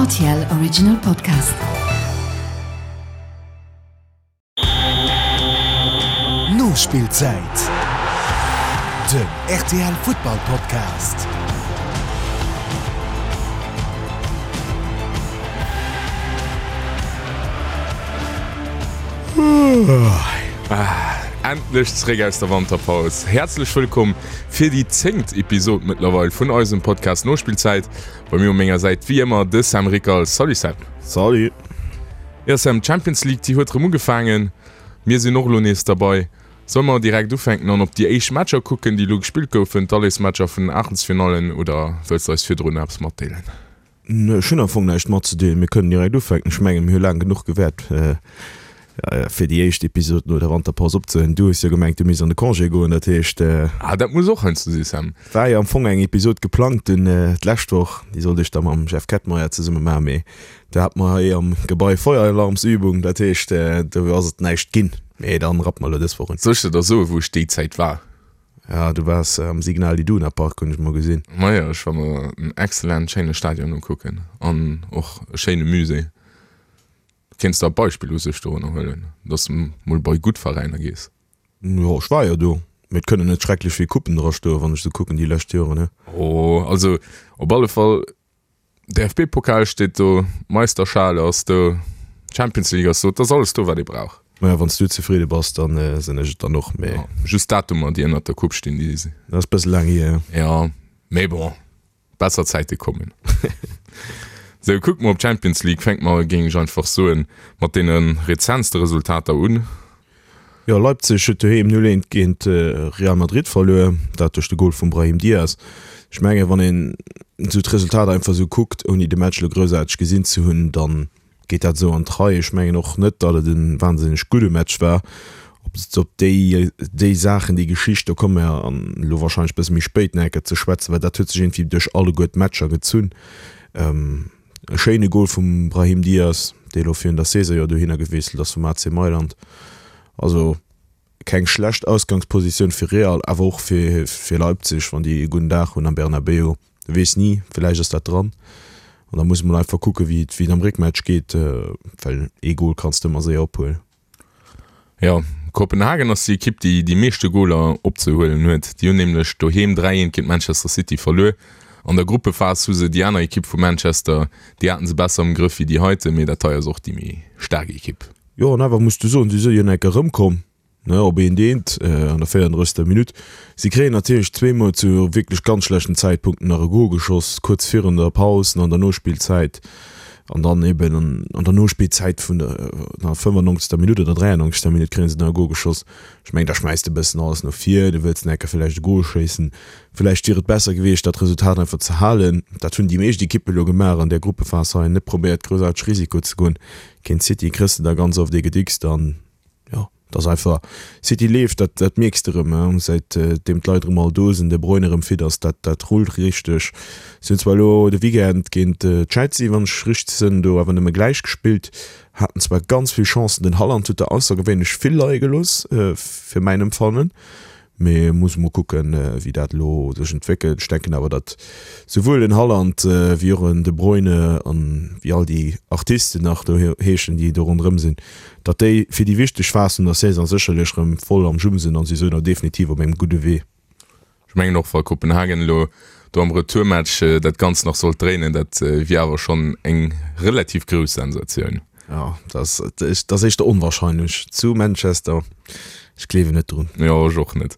Rtl Original Podcast. Nospillzäit, den rtl Futtball Podcast. Endlech zeréck aus der Wanterpaus. Häerzlech wëllkomm fir déi zéngt Episod mëttlerweil vun eisem Podcast Nospillzäit. Bei mir u menger Säit wéi ëmmer de Sam Rickal. Salut Sam. Salut. Jo Sam, d'Champions League déi huet rëm ugefaangen. Mir sinn och elo nees derbei. Solle mer direkt ufänken an op déi éischt Matcher kucken, déi elo gespillt goufen, d'Allesmatcher vun den Aachtelsfinallen, oder wëlls de eis virdrun nach eppes matdeelen? Ech hunn am Fong näischt matzedeelen. Mir kënnen direkt ufänken. Ech mengen, mir hu laang genuch gewäert, fir déi éischt Episod no der Wanterpaus opzehuelen. Du hues jo gemengt, du misst an de Congé goen. Dat heescht. Ah, dat muss och heiansdo si, Sam. War jo am Fong eng Episod geplangt dunn d'lescht Woch. Déi sollt ech da mam Jeff Kettmeyer zesumme maachen, mee do hate mer hei am Gebai Feueralarmsübung. Dat heescht, do ass et näischt ginn. Mee dann rappe mer elo dës Woch un. Soll ech der da soen, wou ech déi Zäit war? Ja, du waars am Signal Iduna Park, hunn ech mol gesinn. Majo, ech war mer en excellent schéine Stadion ukucken an och e schéine Musée. Kéints der e Beispill u sech dorunner huelen, dass de mol bei gutt Veräiner gees? Jo, ech war jo do, mee et kënnen net schrecklech vill Coupen dra stoen, wann ech sou kucken déi lescht Joren, he? Oh, also op alle Fall DFB-Pokal steet do, Meisterschale ass do, Champions League ass do, et ass alles do wat ee brauch. Maja, wann s du zefridde bass, dann sinn ech et dann och, mee. Ja, just d'Datumer déi ënnert der Coupe stinn, déi sinn. Dat ass bësse laang hier, jo. Ja, mee bon, besser Zäite kommen. Sou, kucke mer op d'Champions League, fänke mer, géing ech einfach soen, mat deene rezentste Resultater un. Jo, Leipzig huet doheem 0, 1 géint Real Madrid verluer, dat duerch de Gol vum Brahim Diaz. Ech mengen, wann een esou d'Resultater einfach esou kuckt, ouni de Match elo groussaarteg gesinn ze hunn, da geet dat esou an d'Rei. Ech mengen och net, datt et e wahnsinneg gudde Match war. Op op déi déi Saachen, déi Geschicht, do komme mer elo warscheinlech e bësse méi spéit nach eng Kéier ze schwätzen, well dat huet sech iergendwéi duerch alleguer d'Matcher gezunn. E schéine Gol vum Brahim Diaz, dee elo virun der Saison jo dohinner gewiesselt ass vum AC Mailand. Also keng schlecht Ausgangspositioun fir Real, awer och fir fir Leipzig, wann déi e gudden Dag hunn am Bernabeu. Du weess ni, villäicht ass dat dran. An da muss e mol einfach kucke wéi et wéi et am Réckmatch geet, well ee Gol kanns de ëmmer séier ophuelen. Jo, Kopenhagen ass déi Ekipp, déi déi meeschte Goler opzehuelen huet. Déi hunn nämlech doheem 3, 1 géint Manchester City verluer. An der Gruppephas hu se déi aner Ekipp vu Manchester, déi haten se besser am Grëff wéi déi heiten, mee dat hei ass och déi méi staark Ekipp. Jo, an awer muss du soen, si si jo enk erëmkomm, ne, op eent eent an der 34. Minutt. Si kréien natierlech zweemol zu wierklech ganz schlechten Zäitpunkten nach e Gol geschoss, kuerz virun der Paus an an der Nospillzäit. An dann eben an der Nospillzäit vun der 95. Minutt oder 93. Minutt kréie se nach e Gol geschoss. Ech mengen, da schmäiss de e bëssen alles no vir, du wëlls nach eng Kéier villäicht e Gol schéissen. Villäicht wier et besser gewiescht, dat Resultat einfach ze halen. Dat hunn déi meescht Ekippe elo gemaach an där Gruppephas hei, net probéiert groussaarteg Risiko ze goen. Géint City kriss de da ganz oft ee gedickst an jo. Et ass einfach, City leeft, dat dat mierks de rëm, säit deem d'Leit erëm all do sinn, De Bruyne erëm fit ass, dat dat rullt richteg. Si hunn zwar elo de Weekend géint Chelsea, wann ech richteg sinn, do awer nëmme gläich gespillt, haten zwar ganz vill Chancen, den Haaland huet der aussergewéinlech vill leie gelooss, fir mäin Empfannen. Mee muss mol kucken, wéi dat elo sech entwéckelt. Ech denken awer, datt souwuel den Haaland wéi och en De Bruyne an wéi all déi Artisten nach do heeschen, déi do ronderëm sinn, datt déi fir déi wichteg Phas vun der Saison sécherlech erëm voll am Jum sinn an si sou definitiv op engem gudde Wee. Ech mengen och, wa Kopenhagen elo do am Retourmatch dat Ganzt nach sollt dréinen, dat wier awer schonn eng relativ grouss Sensatioun. Jo, dat ass éischter onwahrscheinlech zu Manchester. Ech gleewen net drun. Jo, ech och net.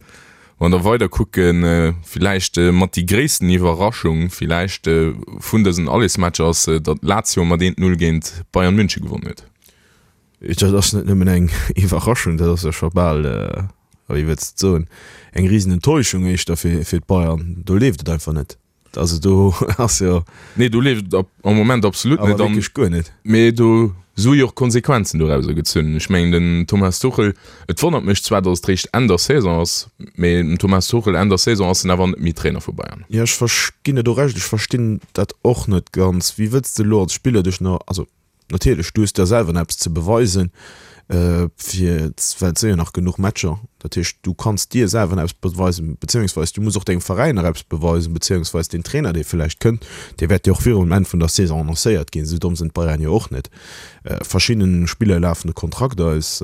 Wann der weider kucken, villäicht mat déi gréissten Iwwerraschung villäicht vun dësen Allesmatcher ass, datt Lazio mat 1, 0 géint Bayern München gewonnen huet. Dat ass net nëmmen eng Iwwerraschung, dat ass jo scho bal, wéi wëlls de et soen, eng risen Enttäuschung éischter fir d'Bayern. Do leeft et einfach net. Also do ass jo. Nee, do leeft et am Moment absolut net. Awer wierklech guer net. Mee do si jo och Konsequenzen dorauser gezunn. Ech mengen den Thomas Tuchel, et wonnert mech zwar, datt et réischt Enn der Saison ass, mee den Thomas Tuchel Enn der Saison ass en awer net méi Trainer vu Bayern. Jo, ech ginn der do Recht, ech verstinn dat och net ganz. Wéi wëlls de elo als Spiller dech nach, also Natierlech, du hues der selwer nach eppes ze beweisen. Fir, well et si jo nach genuch Matcher. Dat heescht, du kanns dir selwer nach eppes beweisen, beziéungsweis du muss och dengem Veräin nach eppes beweisen, beziéungsweis deen Trainer, dee vläicht kënnt, dee wäert jo och virum Enn vun der Saison annoncéiert ginn. Esou domm sinn d'Bayern jo och net. Verschidde Spiller lafen de Kontrakt aus,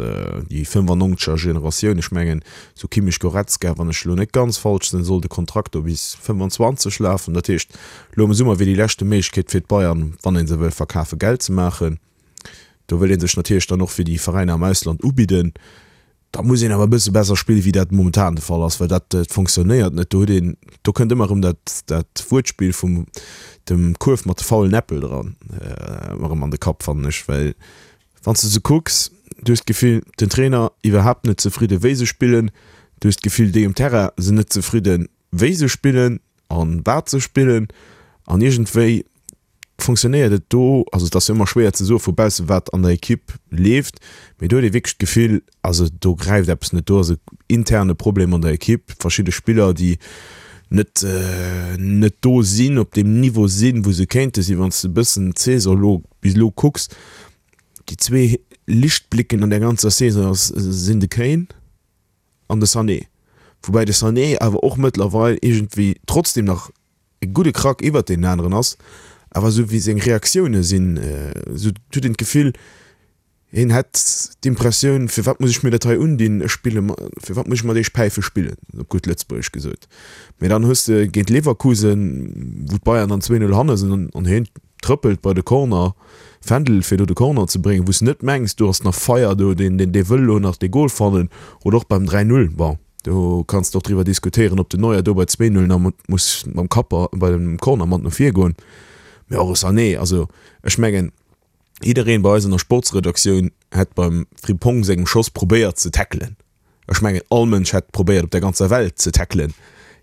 déi 95er Generatioun, ech mengen esou Kimmich, Goretzka, wann ech elo net ganz falsch sinn, soll de Kontrakt do bis 25 lafen. Dat heescht, elo am Summer wier déi leschte Méiglechkeet fir d'Bayern, wann ee se wëll verkafen, Geld ze maachen. Do wëll ee sech natierlech dann och fir déi Veräiner am Ausland ubidden. Da muss een awer e bësse besser spillen, wéi dat momentan de Fall ass, well dat fonctionnéiert net. Do huet een, do kënnt ëmmer erëm dat, dat Wuertspill vum dem Kuerf mat de faulen Äppel dran erëm an de Kapp, fannen ech. Well wann s de se kucks, du hues d'Gefill, den Trainer iwwerhaapt net zefridde wéi se spillen, du hues d'Gefill, déi um Terrain sinn net zefridden, wéi se spillen an wat se spillen an iergendwéi fonctionnéiert et do, also et ass jo ëmmer schwéier ze soe vu bausse wat an der Ekipp leeft, mee do huet ee wierklech d'Gefill, also do gräift eppes net, do ass e interne Problem an der Ekipp, verschidde Spiller déi net net do sinn, op deem Niveau sinn, wou se kéinte sinn. Wann s de e bëssen d'Saison elo bis elo kucks, déi zwee Lichtblicken an der ganzer Saison ass sinn de Kane an de Sané, woubäi de Sané awer och mëttlerweil iergendwéi trotzdem nach e gudde Krack iwwert deenen aneren ass, awer esou wéi seng Reaktioune sinn, esou huet een d'Gefill, hien hätt d'Impressioun, firwat muss ech mir dat hei undinn, ech spille, firwat muss ech mat iech Päife spillen, op gutt Lëtzebuergesch gesot. Mee dann hues de géint Leverkusen, wou d'Bayern dann 2, 0 hanne sinn an hien trëppelt bei de Corner, Fändel, fir do de Corner ze bréngen, wou s de net mengs, do ass nach Feier do, deen dee wëll elo nach dee Gol fannen, oder och beim 3, 0, bon. Do kanns de och driwwer diskutéieren, ob den Neuer do bei 2, 0 nach muss mam Kapp bei dem Corner mat no vir goen. Mee och e Sané, also ech mengen, jiddereen bei eis an der Sportsredaktioun hätt beim Frimpong sengem Schoss probéiert ze tackelen. Ech mengen, all Mënsch hätt probéiert op der ganzer Welt ze tackelen.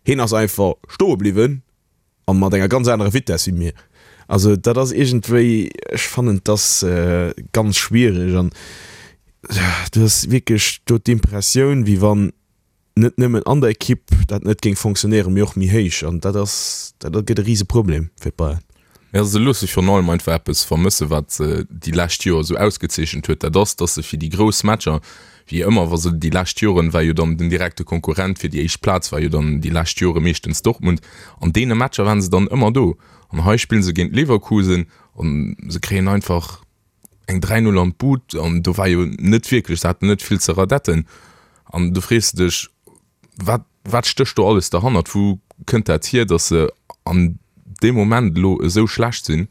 Hien ass einfach stoe bliwwen a mat enger ganz anerer Vitess wéi mir. Also dat ass iergendwéi, ech fannen et ass ganz schwiereg an du hues wierklech do d'Impressioun, wéi wann net nëmmen an der Ekipp dat net géing fonctionnéieren, mee och méi héich an dat ass, dat gëtt e Riseproblem fir d'Bayern. Jo, se loosse virun allem einfach eppes vermëssen, wat se déi lescht Joer esou ausgezeechent huet, dat ass, datt se fir déi grouss Matcher, wéi ëmmer, wa se déi lescht Joren, war jo dann den direkte Konkurrent fir déi éischt Plaz war jo dann déi lescht Jore meeschtens Dortmund, an deene Matcher waren se dann ëmmer do. An hei spille se géint Leverkusen an se kréien einfach eng 3, 0 an d'Bud an do war jo net wierklech, se haten net vill ze radetten an du frees de dech, Wat, wat stécht do alles derhannert? Wou kënnt dat hier, datt se an deem Moment elo esou schlecht sinn?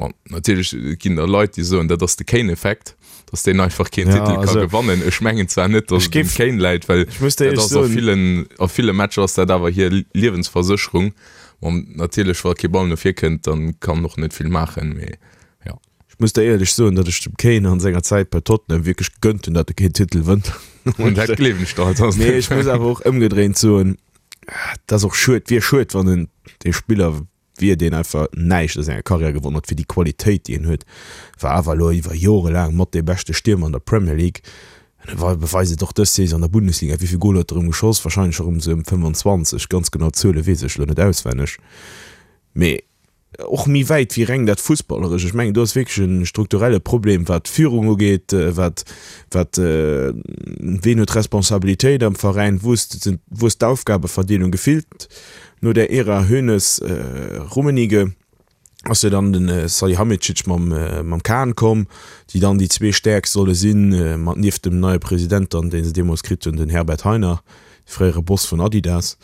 Bon, natierlech ginn der Leit, déi soen, dat ass de Kane-Effekt, datt deen einfach keen Ja, Titel ka also, gewannen. Ech mengen zwar net, datt ech et um géif, Kane läit, well ech muss dir dat éierlech ass a soen, villen, a ville Matcher ass dat awer hir Liewensversécherung. Bon, natierlech, wa kee Ball no vir kënnt, dann kann en och net vill maachen, mee jo. Ech muss der éierlech soen, datt ech dem Kane an senger Zäit bei Tottenham wierklech gegönnt hunn, datt e keen Titel wënnt. Dat gleewen ech der halt ass Mee net. ech muss awer och ëmgedréint soen, et ass och schued, wier schued, wann en dee Spiller wier, deen einfach näischt a senger Karriär gewonnen huet, fir déi Qualitéit, déi en huet, war awer elo iwwer Jore laang mat dee beschte Stiermer an der Premier League. An e beweist et och dës Saison an der Bundesliga. Wéi vill Goler huet e erëm geschoss? Warscheinlech erëm esou ëm 25, ganz genau d'Zuele weess ech elo net auswenneg. Mee Och méi wäit wéi reng dat Fussballeresch. Ech mengen, do ass wierklech e strukturelle Problem, wat d'Führung ugeet, wat, wat, ween huet d'Responsabilitéit am Veräin, wou ass, wou ass d'Aufgabeverdeelung. Gefillt no där Ära Hoeneß, Rummenigge ass jo dann de Salihamidzic mam, mam Kahn komm, déi dann déi zwee Stäerkst solle sinn, mat nieft dem neie President dann, dee se deemools kritt hunn, den Herbert Hainer, de fréiere Boss vun Adidas.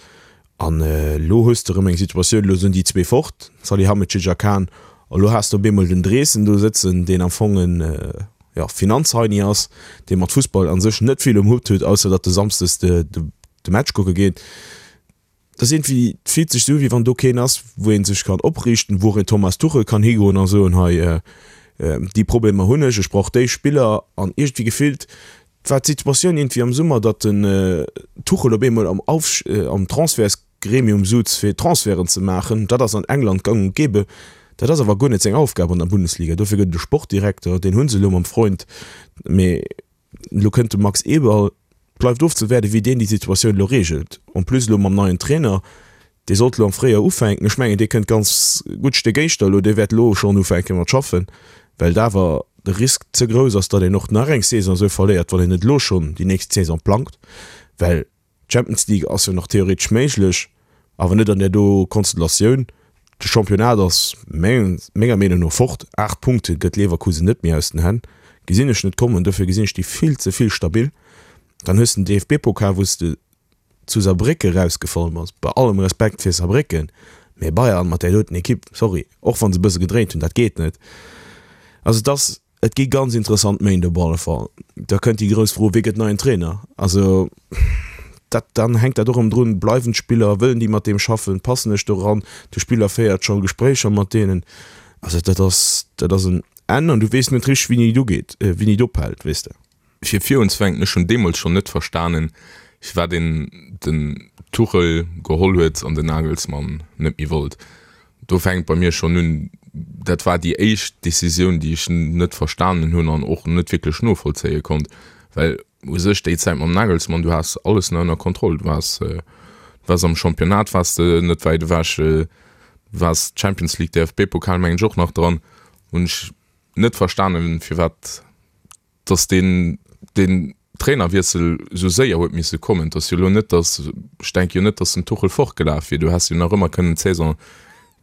An elo hues de erëm eng Situatioun, elo sinn déi zwee fort, Salihamidzic a Kahn, a lo has de op eemol den Dreesen do sëtzen, deen am Fong en, jo, Finanzheini ass, dee mat Fussball a sech net vill um Hutt huet, ausser datt e samsdes de de Match kucke geet. Dat ass iergendwéi, et fillt sech esou u wéi wann do keen ass, wou ee sech kann opriichten, wou och een Thomas Tuchel kann higoen a soen, hei, déi Problemer hunn ech, ech brauch déi Spiller. An iergendwéi gefillt war d'Situatioun iergendwéi am Summer, datt den Tuchel op eemol am Auf am Transfertsgremium suz fir Transferten ze maachen. Dat ass an England gang und gäbe. Dat ass awer guer net seng Aufgab an der Bundesliga. Dofir gëtt et e Sportdirekter, deen hu se elo mam Freund. Mee elo kënnt de Max Eberl. Bleift ofzewaarden, wéi deen déi Situatioun elo reegelt. En plus elo mam neien Trainer, dee sollt elo am Fréijoer ufänken. Ech mengen, dee kënnt ganz gutt Stéck éischter elo. Dee wäert elo schonn ufänke mat schaffen, well et awer. de Risk ze grouss ass, datt een och nach eng Saison esou verléiert, wann een net elo schonn déi nächst Saison plangt, well d'Champions League ass jo nach theoretesch méiglech, awer net an där do Konstellatioun. De Championnat ass menger Meenung no fort, 8 Punkte gëtt Leverkusen net méi aus den Hänn, gesinn ech net kommen, dofir gesinn ech déi vill ze vill stabil. Dann hues de den DFB-Pokal, wou s de zu Saarbrécken erausgefall bass, bei allem Respekt fir Saarbrécken, mee Bayern mat där doten Ekipp, sorry, och wa se e bësse gedréint hunn, dat geet net. Also et ass, et gi ganz interessant Méint op alle Fall. Da kënnt déi grouss Fro, Wie gëtt neien Trainer? Also dat, dann hänkt dat och erëm drun, bleiwen d'Spiller, wëllen déi mat deem schaffen, passen ech do eran? De Spiller féiert scho Gespréicher mat deenen. Also dat ass, dat ass en Enn an du weess net richteg, wéini et ugeet, wéini et ophält, weess de. Fir virunzefänken, ech hunn deemools schonn net verstanen, firwat een den Tuchel geholl huet an den Nagelsmann net méi wollt. Do fänkt bei mir schonn un, dat war déi éischt Decisioun, déi ech net verstanen hunn an och net wierklech novollzéie konnt, well u sech déi Zäit mam Nagelsmann, du has alles nach ënner Kontroll, du waars, du waars am Championnat waars de net wäit ewech, du waars Champions League, DFB-Pokal mengen ech och nach dran, hunn ech net verstanen, firwat dass deen deen Trainerwiessel esou séier huet misse kommen. Et ass jo elo net, dass, ech denke jo net, dass den Tuchel fortgelaf wier. Du häss jo nach ëmmer kënnen d'Saison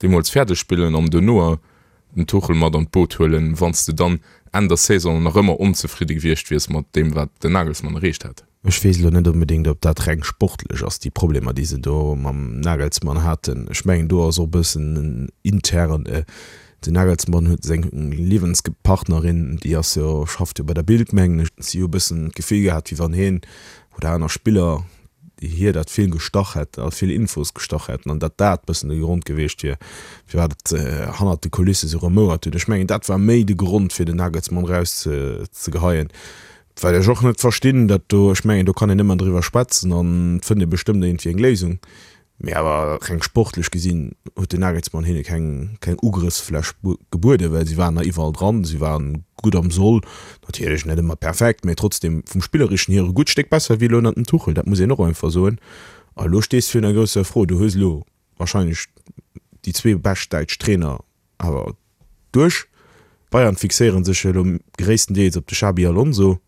deemools fäerdeg spillen an duerno den Tuchel mat an d'Boot huelen, wann s de dann Enn der Saison nach ëmmer onzefridde gewiescht wiers mat deem, wat den Nagelsmann erreecht hätt. Ech weess elo net onbedéngt, ob dat reng sportlech ass, déi Problemer, déi se do mam Nagelsmann haten. Ech mengen, do ass och e bëssen intern, den Nagelsmann huet seng Liewenspartnerin, déi ass jo, schafft jo bei der Bild, mengen ech. Si hu e bëssen d'Gefill gehat, wéi wann hien oder aner Spiller hir dat vill gestach hätt a vill Infos gestach hätten an datt dat bëssen de Grond gewiescht wier, firwat et hannert de Kulisse sou remouert huet. Ech mengen, dat war méi de Grond, fir den Nagelsmann erauszegeheien. Wat ech och net verstinn, dat do, ech mengen, do kann een ëmmer driwwer schwätzen an et fënnt ee bestëmmt iergendwéi eng Léisung, mee awer reng sportlech gesinn huet den Nagelsmann hinne keng, keng Ugrëffsfläch gebueden, well si waren nach iwwerall dran, si waren gutt am Soll, natierlech net ëmmer perfekt, mee trotzdem vum Spillerischen hier e gutt Stéck besser wéi elo ënnert dem Tuchel, dat muss een och einfach soen. A elo stees de virun der grousser Fro, du hues elo wahrscheinlech déi zwee bescht däitsch Trainer awer duerch. D'Bayern fixéiere sech jo elo gréisstendeels op de Xabi Alonso.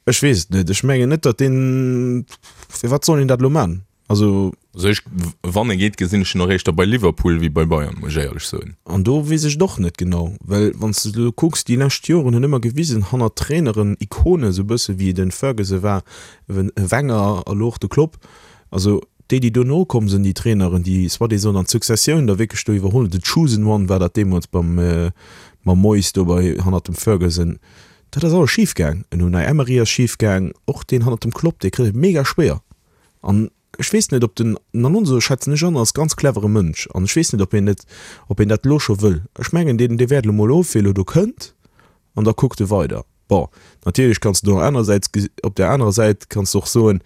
Ech weess et net. Ech mengen net, datt deen, firwat soll een dat elo man? Also. Also ech, wann e geet, gesinn ech en och éischter bei Liverpool wéi bei Bayern, muss ech éierlech soen. An do weess ech et och net genau, well wann s de elo kucks, déi lescht Joren hunn ëmmer gewisen, hannert Traineren, Ikonen, esou e bësse wéi de Ferguson war, e Wenger a lo och de Klopp, also Déi, déi dono komm sinn, déi Traineren, déi soi-disant an d'Successioun da wierklech do iwwerholl hunn, the chosen one war dat deemools beim, mam Moyes do bei, hannert dem Ferguson, dat ass alles schif gaang. En Unai Emery ass schif gaang, och deen hannert dem Klopp, dee kritt et mega schwéier. An ech weess net, ob den Alonso, schätzen ech an, als ganz clevere Mënsch, an ech weess net, ob hien net, ob hien dat elo scho wëll. Ech mengen, deen, dee wäert elo mol of, wéi elo do kënnt, an da kuckt e weider. Bon, natierlech kanns de do anerersäits, op där anerer Säit kanns de och soen,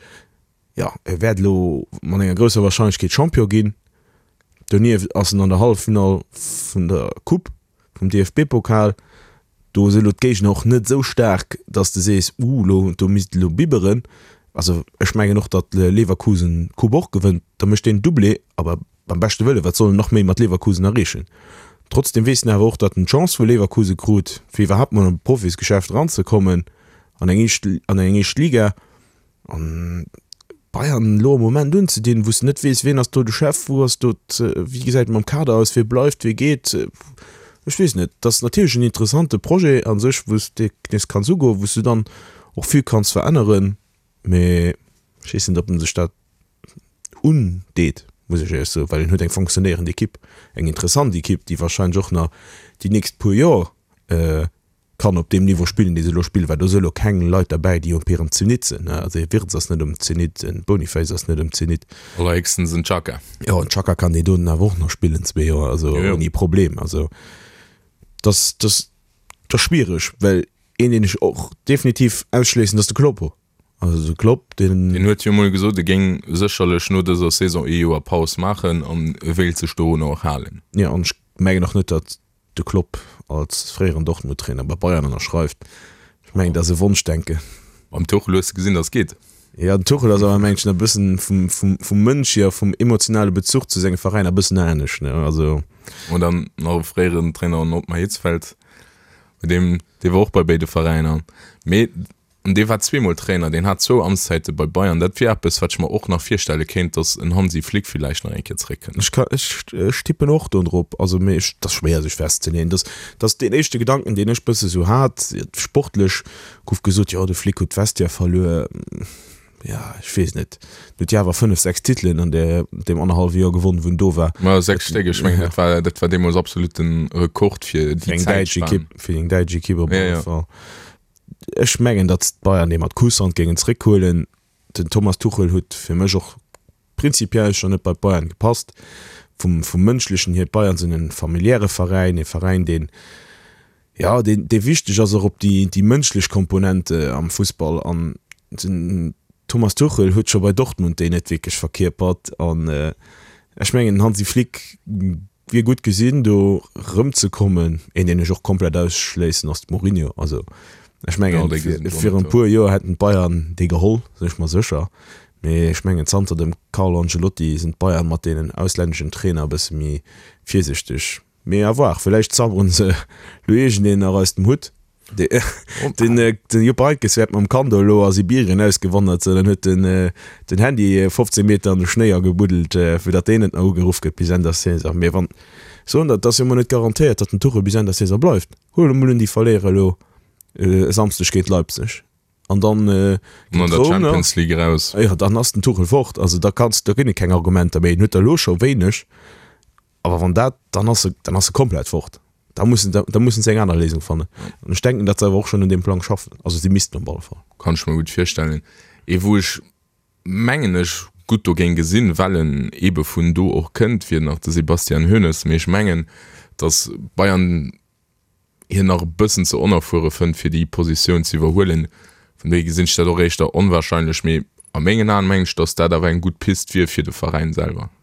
Jo, e wäert elo mat enger grousser Warscheinlechkeet Champion ginn. Donieft ass en an der Halleffinall vun der Coupe vum DFB-Pokal. Do si elo d'Géigner och net esou staark, datt s de sees, Uh, elo do misst elo bibberen. Also ech mengen och, datt Leverkusen d'Coupe och gewënnt. Da mécht deen Doublé, awer beim beschte Wëlle, wat soll en nach méi mat Leverkusen erreechen? Trotzdeem weess en awer och, datt en d'Chance vu Leverkusen krut, fir iwwerhaapt mol an d'Profisgeschäft eranzekommen an eng éischt an eng éischt Liga. An Bayern elo am Moment unzedinn, wou s de net weess, wien ass do de Chef, wou ass do, wéi gesäit et mam Kader aus, wie bleift, wie geet, ech weess net. Et ass natierlech en interessante Projet a sech, wou s de nees kanns ugoen, wou s du dann och vill kanns veränneren, mee ech weess net, ob en sech dat undeet, muss ech éierlech soen, well en huet eng fonctionnéierend Ekipp, eng interessant Ekipp, déi warscheinlech och nach déi nächst puer Joer kann op deem Niveau spillen, dee se elo spillen, well do si elo keng Leit derbäi, déi op hirem Zenit sinn. Also e Wirtz ass net um Zenit, en Boniface ass net um Zenit. Allerhéchstens en Xhaka. Jo, en Xhaka kann deen doten awer och nach spillen, zwee Joer, also ouni Problem. Also dass, dass, dat ass schwiereg, well een, deen ech och definitiv ausschléissen, dat ass de Kloppo. Also de Klopp, deen. Deen huet jo emol gesot, e géing sécherlech no dëser Saison ee Joer Paus maachen an e wéilt sech dorunner och halen. Jo, an ech mengen och net, datt de Klopp als fréieren Dortmund-Trainer bei Bayern ënnerschreift. Ech mengen, dat ass e Wonschdenken. Beim Tuchel hues de gesinn, datt et geet. Jo, den Tuchel ass awer, mengen ech, nach e bëssen vum, vum, vum Mënsch hier, vum emotionale Bezuch zu sengem Veräin e bëssen anescht, ne? Also. An dann nach e fréieren Trainer, den Ottmar Hitzfeld. Deem, dee war och bei béide Veräiner. Mee an dee war zweemol Trainer, deen hat zwou Amtszäite bei Bayern. Dat wier eppes, wat ech mer och nach virstelle kéint, datt en Hansi Flick villäicht nach eng Kéier zeréckkënnt. Ech ka, ech, ech tippen och do drop. Also, mee ech, dat ass schwéier sech festzeleeën. Dat, dat ass deen éischte Gedanken, deen ech bësse sou hat. Sportlech gouf gesot, jo de Flick huet d'Vestiaire verluer. Ja, ech weess net. En huet jo awer 5, 6 Titelen an där, deem annerhallwe Joer gewonnen, wou en do war. Ma 6 Stéck, ech mengen, dat war, dat war deemools absolut den Rekord fir déi eng däitsch Ekipp, fir eng däitsch Ekipp op alle Fall. Ech mengen, datt d'Bayern dee mat Kusshand géingen zréckhuelen. Den Thomas Tuchel huet fir mech och prinzipiell schonn net bei d'Bayern gepasst. Vum, vum Mënschlechen hier, d'Bayern sinn e familiäre Veräin, e Veräin, deen, jo, deen, dee wichteg ass och op déi, déi mënschlech Komponente am Fussball. An den Thomas Tuchel huet scho bei Dortmund déi net wierklech verkierpert. An ech mengen, den Hansi Flick Wier gutt gesinn do rëmzekommen. Een deen ech och komplett ausschléissen ass de Mourinho. Also ech mengen virun e puer Joer hätten d'Bayern dee geholl, sinn ech mer sécher. Mee ech mengen zanter dem Carlo Ancelotti sinn d'Bayern mat deenen auslänneschen Trainer e bësse méi virsichteg. Mee à voir, villäicht zauberen se lo iergendeen nach aus dem Hutt. Den Jupp Heynckes wäert mam Kando elo a Sibirien ausgewandert sinn an huet den Handy 15 Meter an de Schnéi agebuddelt, fir datt deen net nach ugeruff gëtt bis Enn der Saison. Mee wann soen der, et ass jo mol net garantéiert, datt den Tuchel bis Enn der Saison bleift. Huele mol un, déi verléiere elo e Samsdeg géint Leipzig an dann géint Roum nach. Champions League eraus. Jo, dann ass den Tuchel fort. Also da kanns, da ginn et keng Argumenter méi. En huet der elo scho wéineg. Awer wann dat, dann ass e, dann ass e komplett fort. Da mussen, da mussen se eng aner Léisung fannen. An ech denken, datt se awer och schonn un deem Plang schaffen. Also si missten op alle Fall. Kann ech mer gutt virstellen. Ee wou ech, mengen ech, gutt do géing gesinn, well en eebe vun do och kënnt, wier nach de Sebastian Hoeneß. Mee ech mengen, datt Bayern hien nach e bëssen ze onerfuere fënnt, fir déi Positioun ze iwwerhuelen. Vun dohier gesinn ech dat och éischter onwahrscheinlech. Mee a mengen Aen mengen ech, datt dat awer eng gutt Pist wier fir de Veräin selwer.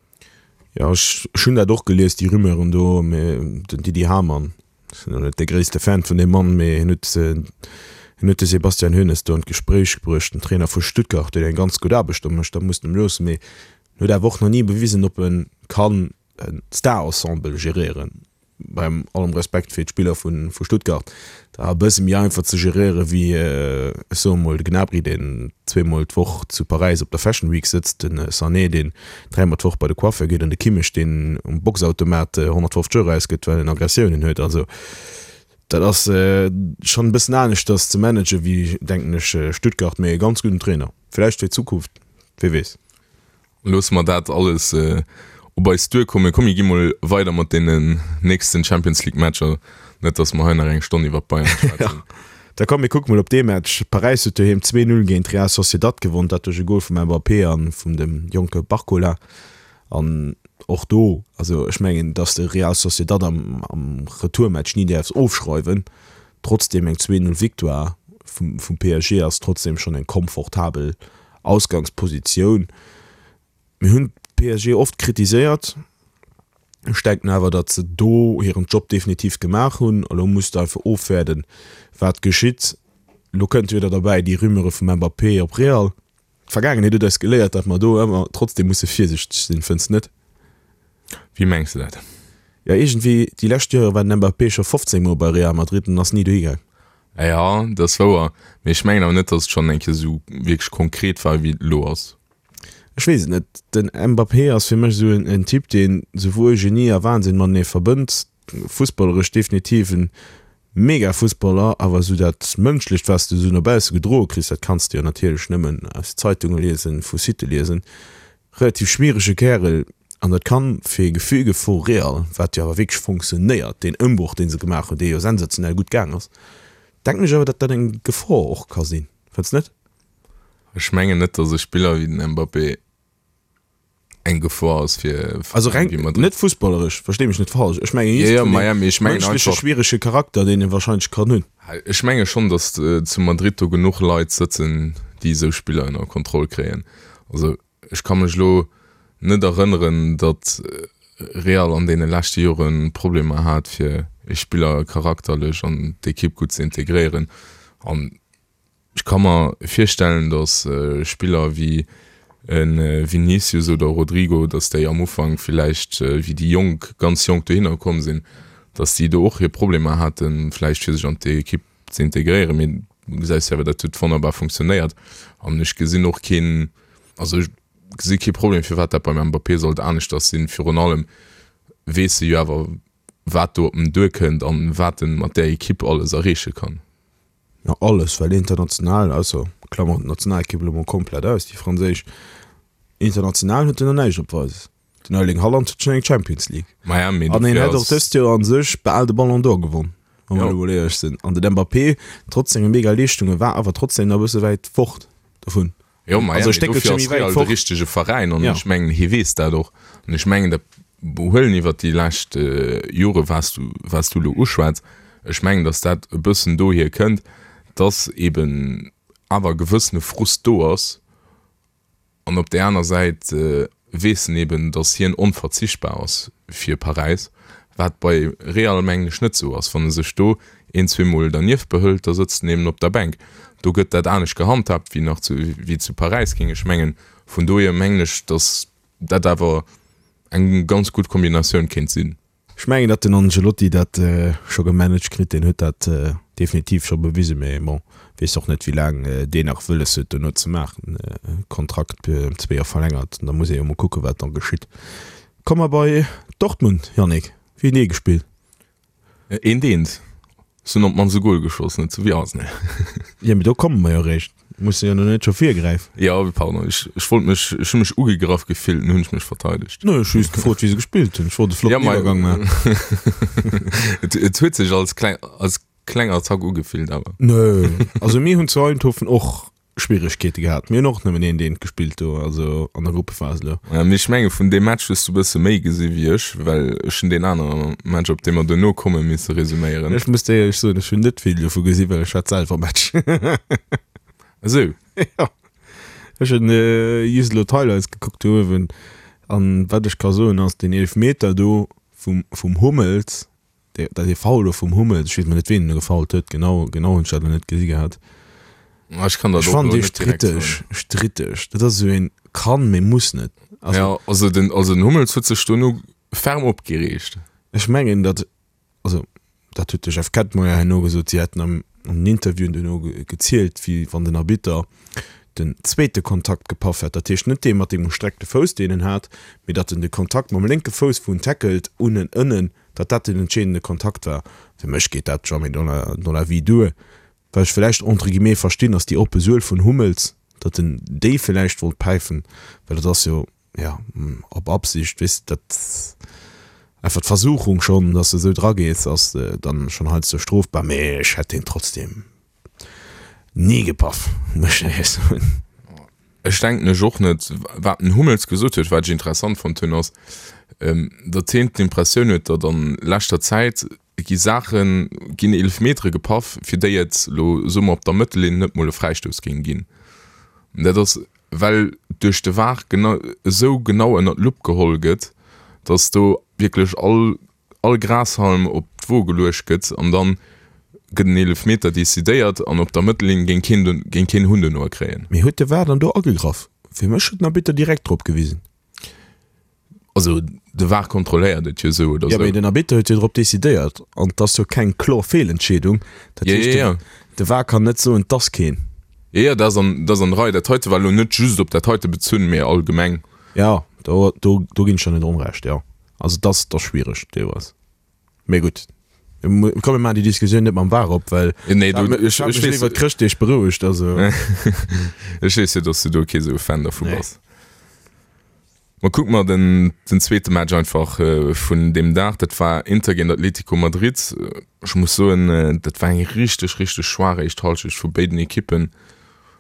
Jo, ech hunn dat och gelies, déi Rumeuren do, mee den Didi Hamann, ech sinn elo net dee gréisste Fan vun deem Mann, mee hien huet, hien huet de Sebastian Hoeneß do an d'Gespréich bruecht, den Trainer vu Stuttgart, deen eng ganz gutt Aarbecht do mécht, dat muss en em loossen, mee en huet awer och nach ni bewisen, ob e kann e Star-Ensemble geréieren. Beim allem Respekt fir d'Spiller vu Stuttgart, dat ass e bësse méi einfach ze geréiere wéi, ech soe mol, de Gnabry, deen zweemol d'Woch zu Paräis op der Fashion Week sëtzt, de Sané, deen dräimol d'Woch bei de Coiffeur geet an de Kimmich, deen um Boxautomat 150 Euro ausgëtt, well en Aggressiounen huet. Also dat ass schonn e bëssen aneschters ze managen wéi, denken ech, Stuttgart, mee e ganz gudden Trainer vläicht fir d'Zukunft, wie weess. Loosse mer dat alles op eis duerkommen. Komm mir gi mol weider mat deenen nächsten Champions League Matcher, net dass mer hei nach eng Stonn iwwer d'Bayern schwätzen. Da komm mir kucke mol op dee Match. Paräis huet doheem 2, 0 géint Real Sociedad gewonn, dat duerch e Gol vum Mbappé a vum dem jonke Barcola. An och do, also ech mengen, dass de Real Sociedad am Retourmatch ni däerfs ofschreiwen. Trotzdeem eng 2, 0 Victoire vum PSG ass trotzdeem schonn eng komfortabel Ausgangspositioun. Mir hunn PSG oft kritiséiert. Ech denken awer, datt se do hiren Job definitiv gemaach hunn. Elo muss de einfach ofwäerden, wat geschitt. Elo kënnt jo wieder derbäi déi Rumeure vum Mbappé op Real. D'Vergaangenheet huet eis geléiert, datt mer do ëmmer trotzdeem musse virsichteg sinn, fënns net? Wéi mengs de dat? Jo, iergendwéi déi lescht Jore war den Mbappé scho 15 Mol bei Real Madrid an ass ni dohi gaang. Jo, dat ass wouer, mee ech mengen awer net, datt et schonn eng Kéier esou wierklech konkret war, wéi et elo ass. Ech weess et net. Den Mbappé ass fir mech esou en Typ, deen souwuel Genie a Wahnsinn matenee verbënnt. Fussballeresch definitiv en mega Fussballer, awer esou dat Mënschlecht, wat s de esou no bausse gedroe kriss, dat kanns de jo natierlech nëmmen aus Zeitunge liesen, vu Sitte liesen. Relativ schmierege Kärel an dat kann fir e Gefüge vu Real, wat jo awer wierklech fonctionnéiert, deen Ëmbroch dee se gemaach hunn, dee jo sensationell gutt gaang ass, denken ech awer, datt dat eng Gefor och ka sinn. Fënns net? Ech mengen net, datt e Spiller wéi den Mbappé eng Gefor ass fir Also reng wéi Madrid. net fussballeresch, verstee mech net falsch, ech mengen just vun deem mënschleche schwierege Charakter, deen e wahrscheinlech kann hunn. Ech menge schonn, datt zu Madrid do genuch Leit sëtzen, déi esou Spiller ënner Kontroll kréien. Also ech ka mech elo net erënneren, datt Real an deene leschte Jore Problemer hat, fir e Spiller charakterlech an d'Ekipp gutt ze integréieren. An ech ka mer virstellen, datt Spiller wéi e Vinicius oder Rodrygo, datt déi am Ufank villäicht, wéi déi Jonk, ganz jonk dohinner komm sinn, Datt déi do och hir Problemer haten, vläicht fir sech an d'Ekipp ze integréieren. Mee du gesäis jo awer, dat huet wonnerbar funktionéiert. An ech gesinn och keen, also ech gesi kee Problem, firwat dat beim Mbappé sollt aneschters sinn. Virun allem weess e jo awer, wat do op en duerkënnt an wat en mat där Ekipp alles erreeche kann. Jo, alles, well international, ausser klammern d'Nationalekipp elo mol komplett aus, déi franséisch, international huet en nach näischt opweises. Den Erling Haaland huet schonn eng Champions League. Maja, mee An hien hätt och dëst Joer an sech bal de Ballon d'Or gewonn, wa mer elo mol éierlech sinn. An den Mbappé, trotz senge mega Leeschtunge, war awer trotzdem nach e bësse wäit fort dovun. Jo, maja, mee dofir ass Real de richtege Veräin an ech mengen, hie weess dat och. An ech mengen, dat Behuelen iwwert déi lescht Jore, wat s du, wat s du elo uschwätz, ech mengen, datt dat e bëssen dohier kënnt, datt eeben awer e gewëssene Frust do ass, An op där aner Säit weess en eben, datt hien onverzichtbar ass fir Paräis, wat bei Real mengen ech net esou ass. Wann e sech do een, zweemol dernieft behëlt, da sëtzt en eben op der Bänk. Do gëtt dat anescht gehandhaabt wéi nach zu, wéi zu Paräis, géing ech mengen. Vun dohier mengen ech, datt dat awer eng ganz gutt Kombinatioun kéint sinn. Ech mengen datt den Ancelotti dat scho gemanagt kritt, deen huet dat definitiv scho bewisen, mee bon, weess och net wéi laang deen nach wëlles huet dono ze maachen. Kontrakt ëm zwee Joer verlängert, da muss ee jo mol kucke wat da geschitt. Komme mer bei Dortmund, Yannick, wéi hunn déi gespillt? Eent eent. Se hunn op d'mannst e Gol geschoss, net sou wéi Arsenal. Jo, mee do komme mer jo eréischt. Muss jo net scho virgräifen. Jo, pardon, ech, ech wollt mech, ech hu mech ugegraff gefillt, an hunn ech mech verteidegt. Nee, ech hu just gefrot, wéi se gespillt hunn. Ech wollt e flotten Iwwergang maachen. Et, et huet sech als kleng, als kleng Attack ugefillt, awer. Nee, also mir hunn zu Eindhoven och Schwieregkeete gehat. Mir hunn och nëmmen eent eent gespillt do, also an der Gruppephas elo. Ja, mee ech menge vun deem Match hues du e bësse méi gesi wéi ech, well ech hunn deen anere Match, op dee mer duerno kommen, misse resuméieren. Ech muss dir éierlech soen, ech hunn net vill dovu gesi well ech hat selwer Match. Esou? Jo. Ech hunn just elo d'Highlights gekuckt do uewen an wat ech ka soen ass, deen Eelefmeter do vum vum Hummels, Dat ee Foul do vum Hummels, ech weess mol net ween en gefoult huet, genau genau hunn ech dat elo net gesi gehat. Ech kann dat Ech och fannen elo dee net direkt stritteg, soen. stritteg. Dat ass esou een kann, mee muss net. Also Ja, also den also den Hummels huet sech dono ferm opgereegt. ech mengen dat, also dat huet de Jeff Kettmeyer herno gesot, si hätten am an den Interviewen duerno gezielt, wéi wann den Arbitter den zweete Kontakt gepaff hätt, dat heescht net dee mat dem gestreckte Fouss, deen en hat, mee datt en de Kontakt mam lénke Fouss, wou en tackelt, unnen ënnen, datt dat den entscheedende Kontakt war. Fir mech geet dat jamais dans la, dans la vie duer. Wat ech villäicht entre guillemets verstinn, ass déi oppe Suel vun Hummels, datt en déi villäicht wollt päifen, well dat ass jo, jo, op Absicht, weess de, dat einfach d'Versuchung schonn, datt s de esou dragees, ass dann schonn heiansdo strofbar, mee ech hätt deen trotzdem ni gepaff, muss ech éierlech soen. Ech denken ech och net. Wat den Hummels gesot huet, wat ech interessant fonnt hunn, ass, datt hien d'Impressioun huet, datt an leschter Zäit gi Saachen, ginn Eelefmetere gepaff, fir déi et elo, soe mer, op der Mëttellinn net mol e Fräistouss géing ginn. An dat ass, well duerch de var genau esou genau ënner d'Lupp geholl gëtt, datt do wierklech all all Grashalm op d'Wo geluecht gëtt an dann gëtt en Eelefmeter decidéiert an op der Mëttellinn géing keen géing keen Hunn dono kréien. Mee huet de var dann do agegraff? Fir mech huet den Arbitter direkt drop gewisen. Also de var kontrolléiert et jo esou oder Jo, esou. mee den Arbitter huet jo drop decidéiert an 't ass jo keng kloer Feelentscheedung. Dat Jo, heescht, jo, jo. de var kann net soen, 't ass keen. Jo, jo, dat ass an, dat ass an der Rei. Dat heite war elo net just op dat heite bezunn, mee allgemeng. Jo, do, do, do ginn ech der net onrecht, jo. Also dat ass, dat ass schwiereg deelweis. Mee gutt, komm mir maachen déi Diskussioun net mam VAR op, well Nee, du, ech ech, hat ech mech weess, iwwer d'Chrëschtdeeg berouegt, also. Ech weess jo, dass du do kee sou Fan dervu Nee. bass. Ma kucke mer den, den zweete Match einfach vun deem Dag. Dat war Inter géint Atlético Madrid. Ech muss soen, dat war eng richteg, richteg schwaach éischt Hallschecht vu béiden Ekippen.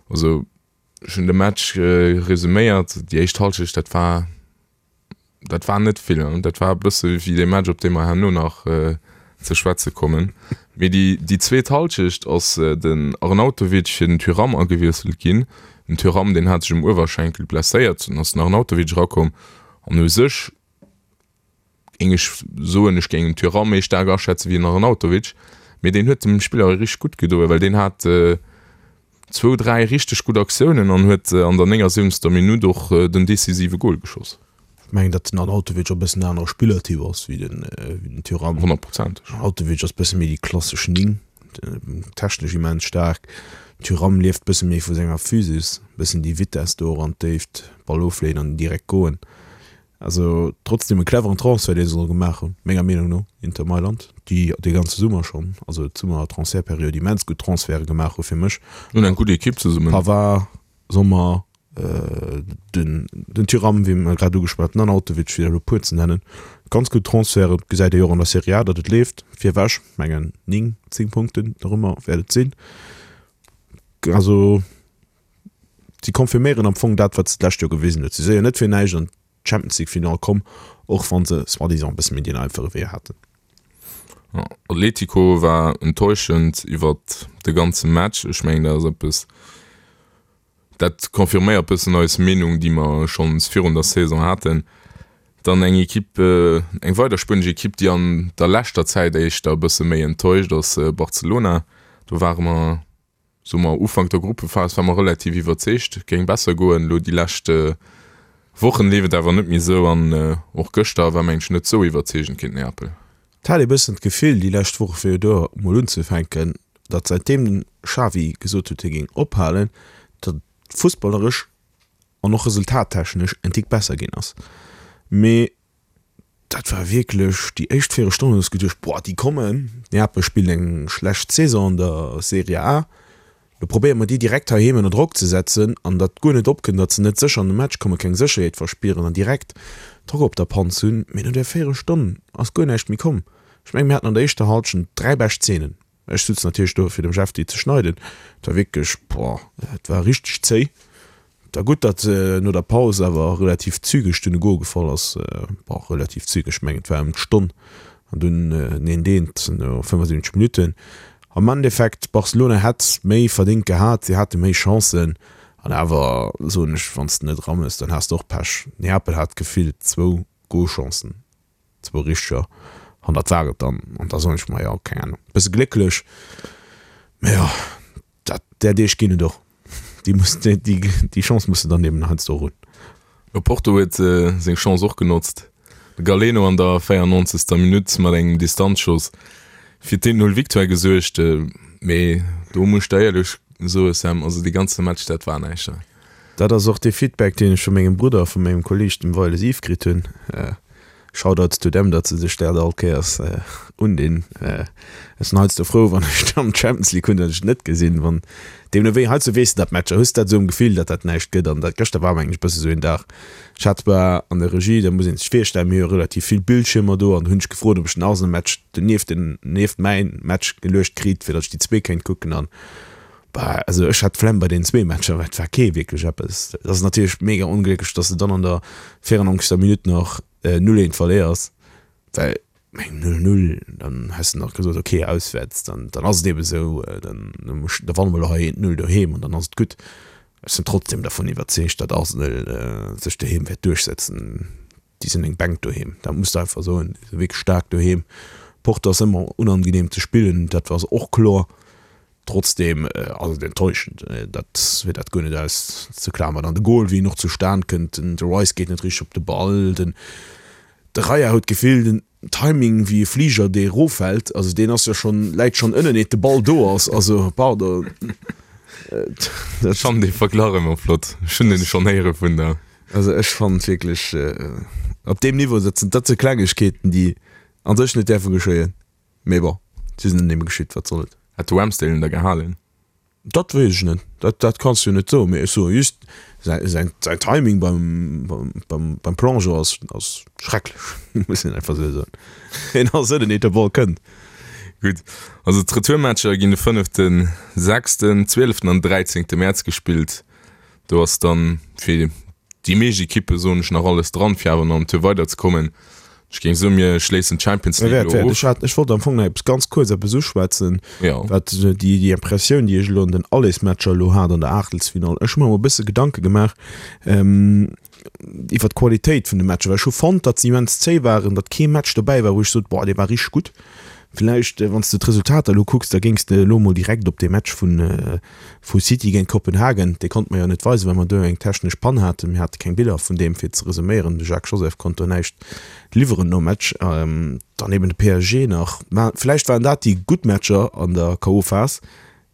Also ech hunn de Match resuméiert, déi éischt Hallschecht, dat war, Dat war net vill. Dat war e bësse wéi dee Match, op dee mer herno nach ze schwätze kommen. Mee déi, déi zweet Hallschecht ass den Arnautovic fir den Thuram agewiesselt ginn. Den Thuram, deen hat sech um Uewerschenkel blesséiert, dunn ass den Arnautovic erakomm. An u sech géing ech soen, ech géing den Thuram méi staark aschätze wéi den Arnautovic. Mee deen huet dem Spiller richteg gutt gedoen, well deen hat zwou, dräi richteg gutt Aktiounen an huet an der 79. Minutt och den decisive Gol geschoss. Ech mengen, datt den Arnautovic och e bëssen en anere Spillertyp ass wéi den, wéi den Thuram. Honnertprozenteg. Arnautovic ass bësse méi déi klassesch 9, technesch immens staark. Thuram lieft bësse méi vu senger Physis, bëssen déi Vitess do och an d'Déift, Ball ofleeën an direkt goen. Also trotzdem e cleveren Transfert, dee se do gemaach hunn, menger Meenung no, Inter Mailand, déi dee ganze Summer schonn, also d'Summer-Transfertperiod immens gutt Transferte gemaach hu fir mech. Hunn eng gutt Ekipp zesummen. Pavard, Sommer, den den Thuram, wéi mer grad ugeschwat, den Arnautovic, fir elo e puer ze nennen. Ganz gutt Transferten, gesäit ee jo och an der Serie A, datt et leeft. Virewech, mengen 9, 10 Punkten dorëmmer wäert et sinn. Also si confirméieren am Fong dat, wat se d'lescht Joer gewisen huet. Si si jo net fir näischt an d'Champions League Final komm, och wa se soi-disant e bësse méi deen einfache Wee haten. Atletico war enttäuschend iwwert de ganze Match. Ech mengen, dat ass eppes, dat confirméiert bëssen eis Meenung, déi mer schonns virun der Saison haten. Dann eng Ekipp, eng weider spuenesch Ekipp, déi an der leschter Zäit éischter e bësse méi enttäuscht, ass Barcelona. Do ware mer Soe mer Ufank der Gruppephas war mer relativ iwwerzeegt, et géing besser goen. Elo déi lescht Wochen leeft et awer net méi esou an och gëschter war mengen ech net esou iwwerzeegend géint Neapel. Et hat ee bëssen d'Gefill déi lescht Woche fir do mol unzefänken, datt säitdeem den Xavi gesot huet hie géing ophalen, datt et fussballeresch an och resultattechnesch en Tick besser ginn ass. Mee Dat war wierklech déi éischt Véierelstonn hunn ech geduecht, boah, déi kommen. Neapel spillt eng schlecht Saison an der Serie A. Lo probéiere mer déi direkt heiheem ënner Drock ze setzen an datt guer net opkënnt, datt se net sécher an de Match kommen, keng Sécherheet verspieren an direkt Drock op der Panz hunn. Mee no där Véierelstonn ass guer näischt méi komm. Ech mengen, mir haten an der éischter Hallschent 3 bescht Zeenen. Ech sutz natierlech do fir dem Jeff déi ze schneiden. Et war wierklech, boah, et war richteg zéi. Et war gutt, datt no der Paus awer relativ zügeg dunn e Gol gefall ass. Bon, relativ zügeg, ech mengen et war ëm d'Stonn an dunn den eent eent no 75 Minutten. Am Endeffekt, Barcelona hätt méi verdéngt gehat, si hate méi Chancen an awer soen ech, wann s de net eraméchs, dann has de och Pech. Neapel hat gefillt zwou Golchancen. Zwou richteger, an dat war et dann. An da soen ech mer, jo, keng Ahnung, bësse glécklech, mä jo, dat, där Deeg ginn et och. Déi muss, déi, déi Chance muss de dann eben heiansdo och hunn. Porto huet seng Chance och genotzt. De Galeno an der 94. Minutt mat engem Distanzschoss fir d'Eent-Null Victoire gesuergt. Mee do muss ech der éierlech soe Sam, also dee ganze Match, dat war näischt. Dat ass och dee Feedback, deen ech vu mengem Brudder a vu mengem Kolleeg, dem Weiles Yves, kritt hunn. Shoutouts to them, datt se sech dat all Kéiers undinn. Ech sinn heiansdo frou, wann ech dann d'Champions League hunn, datt ech et net gesinn. Wann, deemno wéi, heiansdo weess de dat Matcher, hues dat esou am Gefill, datt dat näischt gëtt. An dat gëschter war mengen ech e bësse sou een Dag. Ech hat zwar an der Regie, dat muss ee sech virstellen, mir hu jo relativ vill Bildschiermer do, an do hunn ech gefrot, ob ech den Arsenal-Match donieft den, nieft mäin Match geluecht kritt, fir datt ech déi zwee kéint kucken. An Bah, also ech hat d'Flemm bei den zwee Matcher, well et war kee wierklech eppes. Et ass natierlech mega onglécklech, dass de dann an der 94. Minutt nach 0, 1 verléiers, well meng 0, 0, dann häss de nach gesot, okay, auswäerts, dann, dann ass et eebe sou, dann, da wanne mer elo hei 1, 0 doheem an dann ass et gutt. Ech sinn trotzdem dervun iwwerzeegt, datt Arsenal sech doheem wäert duerchsetzen. Déi sinn eng Bänk doheem, dat muss de einfach soen. Déi si wierklech staark doheem. Porto ass ëmmer unangeneem ze spillen, dat ass och kloer. Trotzdem ass et enttäuschend, dat fir dat guer net auszeklammern. An de Goal, wéi en och zustan kënnt, den de Rice geet net richteg op de Ball, den de Raya huet d'Gefill, den Timing wéi e Fliger dee eroffält, also deen ass jo schonn, läit schonn ënnen eet de Ball do ass, also pardon. Ech fannen dee Verglach ëmmer flott, ech hunn en schonn héiere vun der. Also ech fannen wierklech op deem Niveau, dat sinn dat si Klengegkeeten déi an sech net däerfe geschéien. Mee bon, si sinn ënneneem geschitt, wat soll et. Hätt de Ramsdale en da gehalen? Dat weess ech net, dat, dat kanns de jo net soen. Mee ech soe just, säi, säin, säin Timing beim, beim, beim, beim Plongeon ass, ass schrecklech, muss een einfach esou soen. Hien ass ënnen, eet de Ball kënnt. Gutt, also d'Retourmatcher ginn de fënneften, sechsten, zwieleften an dräizéngte Mäerz gespillt. Do ass dann fir déi meescht Ekippe, soen ech, nach alles dran, fir awer nach am Tour weiderzekommen. Ech géing soen, mir schléissen d'Champions League elo of. Ech hat, ech wollt am Fong nach eppes ganz kuerz eppes uschwätzen, wat déi, déi Impressioun, déi ech elo an den Allesmatcher elo hat an der Aachtelsfinall. Ech hu mer emol e bësse Gedanke gemaach iwwer d'Qualitéit vun de Matcher, well ech hu fonnt, datt se immens zéi waren, datt kee Match dobäi war, wou ech sot, boah, dee war richteg gutt. Villäicht, wann s de d'Resultater elo kucks, da géings de elo mol direkt op dee Match vun, vu City géint Kopenhagen, dee konnte mer jo net weisen, well mer do eng technesch Pann haten. Mir hate keng Biller vun deem, fir ze resuméieren. De Jacques Joseph konnt do näischt liwweren nom Match. Dann eben de PSG nach. Mä villäicht waren dat déi gutt Matcher an der K.O.-Phas.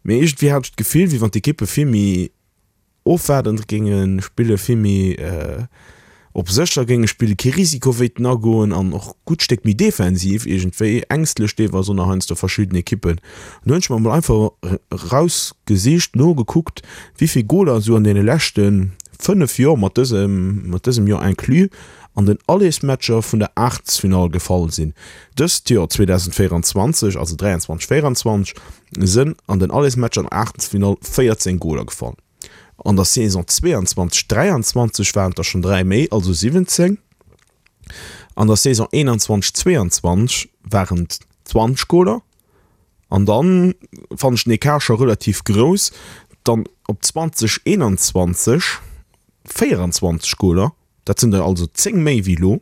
Mee iergendwéi hat ech d'Gefill, wéi wann d'Ekippe vill méi ofwaardend géinge spillen, vill méi op sécher géinge spillen, kee Risiko wéilten agoen an och gutt Stéck méi defensiv iergendwéi, ängstlech deelweis och nach heiansdo verschidden Ekippen. An do hunn ech mer emol einfach erausgesicht, nogekuckt, wéi vill Goler esou an deene leschte 5 Joer, mat dësem, mat dësem Joer inclus, an den Allersmatcher vun der Aachtelsfinall gefall sinn. Dëst Joer 2024, also 23, 24, sënn an den Allersmatcher an der Aachtelsfinall 14 Goler gefall. An der Saison 22, 23 waren et der schonn 3 méi, also 17. An der Saison 21, 22 waren et 20 Goler. An dann fannen ech den Ecart scho relativ grouss, dann op 20, 21 24 Goler, dat sinn der also 10 méi wéi elo.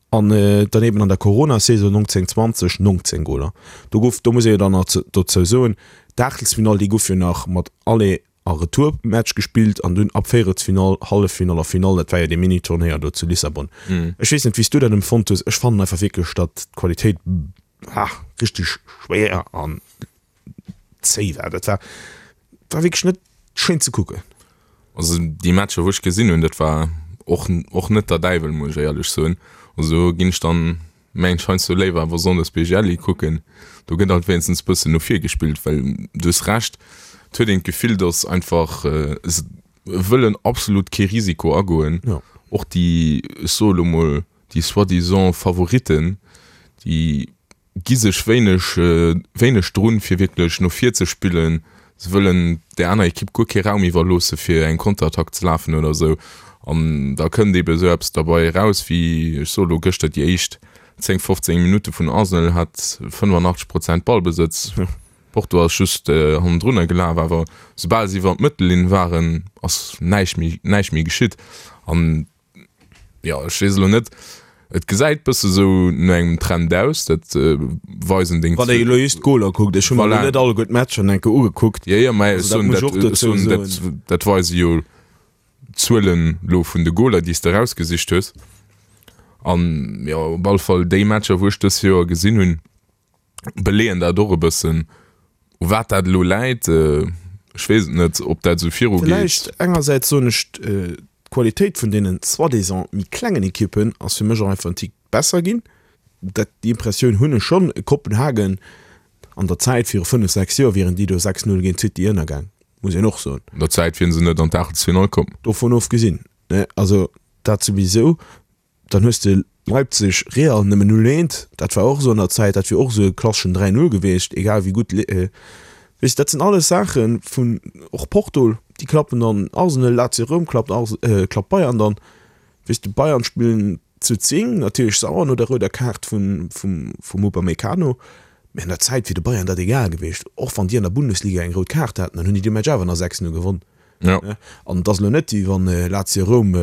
An dann eben an der Corona-Saison 19, 20, 19 Goler. Do gouf, do muss ee jo dann nach dozou soen, d'Aachtelsfinall, déi gouf jo nach mat Aller a Retourmatch gespillt an dunn ab Véierelsfinall, Halleffinall a Finall, dat war jo dee Mini-Turnéier do zu Lissabon. Ech weess net, wéi s du dat empfonnt hues. Ech fannen einfach wierklech, datt d'Qualitéit, ah, richteg schwéier an zéi war. Dat war, war wierklech net schéin ze kucken. Also déi Matcher wou ech gesinn hunn, dat war och och net der Däiwel, muss ech éierlech soen. Also do ginn ech dann mengen ech heiansdo léiwer awer Sonndes BGL kucken. Do gëtt alt wéinstens bëssen no vir gespillt, well du hues Recht, et huet een d'Gefill, datt einfach se wëllen absolut kee Risiko agoen. Ja. Och déi, ech soe lo mol, déi soi-disant Favoritten, déi gi sech wéineg wéineg drun, fir wierklech no vir ze spillen. Se wëllen där aner Ekipp guer kee Raum iwwerloosse fir eng Konterattack ze lafen oder esou. An da kënnt eebe esou eppes derbei eraus wéi, ech soe lo gëschter, déi éischt 10, 15 Minutte vun Arsenal hat 85 Prozent Ballbesëtz. Porto ass just hannendrunner gelaf, awer soubal se iwwer d'Mëttellinn waren, ass näischt méi näischt méi geschitt. An Jo, ech weess elo net, et gesäit bësse sou no engem Trend aus, dat weisen deng. Wann ee elo just d'Goler kuckt, ech hu mer elo net alleguer d'Matcher enke ugekuckt. Jo, jo, mä ech soen, dat, ech soen, dat, dat weise jo d'Zuelen elo vun de Goler, déi s de erausgesicht hues. An jo, op alle Fall déi Matcher, wou ech dës Joer gesinn hunn, beleeën dat och e bëssen. U wat dat elo läit, ech weess et net, ob dat esou viru geet. Villäicht engersäits soen ech, d'Qualitéit vun deenen soi-disant méi klengen Ekippen ass fir mech och einfach en Tick besser ginn. Dat, déi Impressioun hunn ech schonn. Kopenhagen an der Zäit viru 5, 6 Joer wieren déi do 6, 0 géint City ënnergaang, muss een och soen. An der Zäit wieren se net an d'Aachtelsfinall komm. Dovun ofgesinn, ne, also dat souwisou. Dann hues de Leipzig, Real nëmmen 0, 1, dat war och esou an der Zäit, dat wier och esou e klasseschen 3, 0 gewiescht, egal wéi gutt, weess de, dat sinn alles Saache vun, och Porto, déi klappen dann Arsenal, Lazio Roum klappt Ars, klappt Bayern dann, weess de, Bayern spillen zu 10, natierlech sauer no der rouder Kaart vun, vum, vum Upamecano, mä an der Zäit wier de Bayern dat egal gewiescht, och wann déi an der Bundesliga eng rout Kaart haten, dann hunn déi dee Match awer nach 6, 0 gewonn. Ja. An et ass elo net, wéi wann Lazio Roum,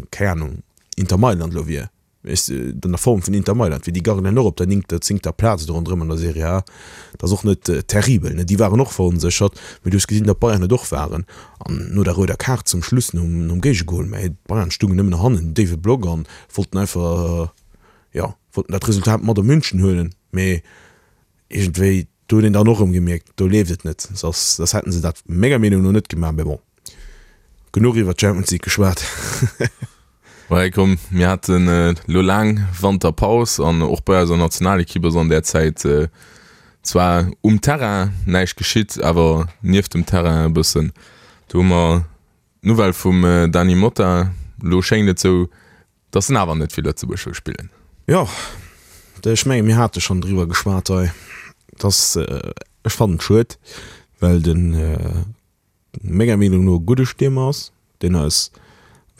keng Ahnung, Inter Mailand elo wier, weess de, an der Form vun Inter Mailand wier. Déi garnen och op der néngter, zéngter Plaz do ronderëm an der Serie A. Dat ass och net terribel, ne. Déi waren och veronséchert, mee du hues gesinn, datt Bayern et och waren. An no der rouder Kaart zum Schluss, nom, nom Géigegol, mä d'Bayern stungen nëmmen nach hannen, déiwe Block an wollten einfach, jo, wollten dat Resultat mat op München huelen. Mee iergendwéi, do huet een dann och erëm gemierkt, do leeft et net, soss soss hätten se dat menger Meenung no net gemaach. Mee bon, genuch iwwer d'Champions League geschwat. Ouais, komm, mir haten elo laang Wanterpaus an och bei eiser Nationalekipp ass an där Zäit zwar um Terrain näischt geschitt, awer nieft dem Terrain e bëssen. Do hu mer d'Nouvelle vum Dany Motta. Elo schéngt et sou, Dass en awer net fir Lëtzebuerg wëll spillen. Jo, ech mengen, mir hate schonn driwwer geschwat hei, dass, ech fannen et schued, well den menger Meenung no e gudde Stiermer ass, deen eis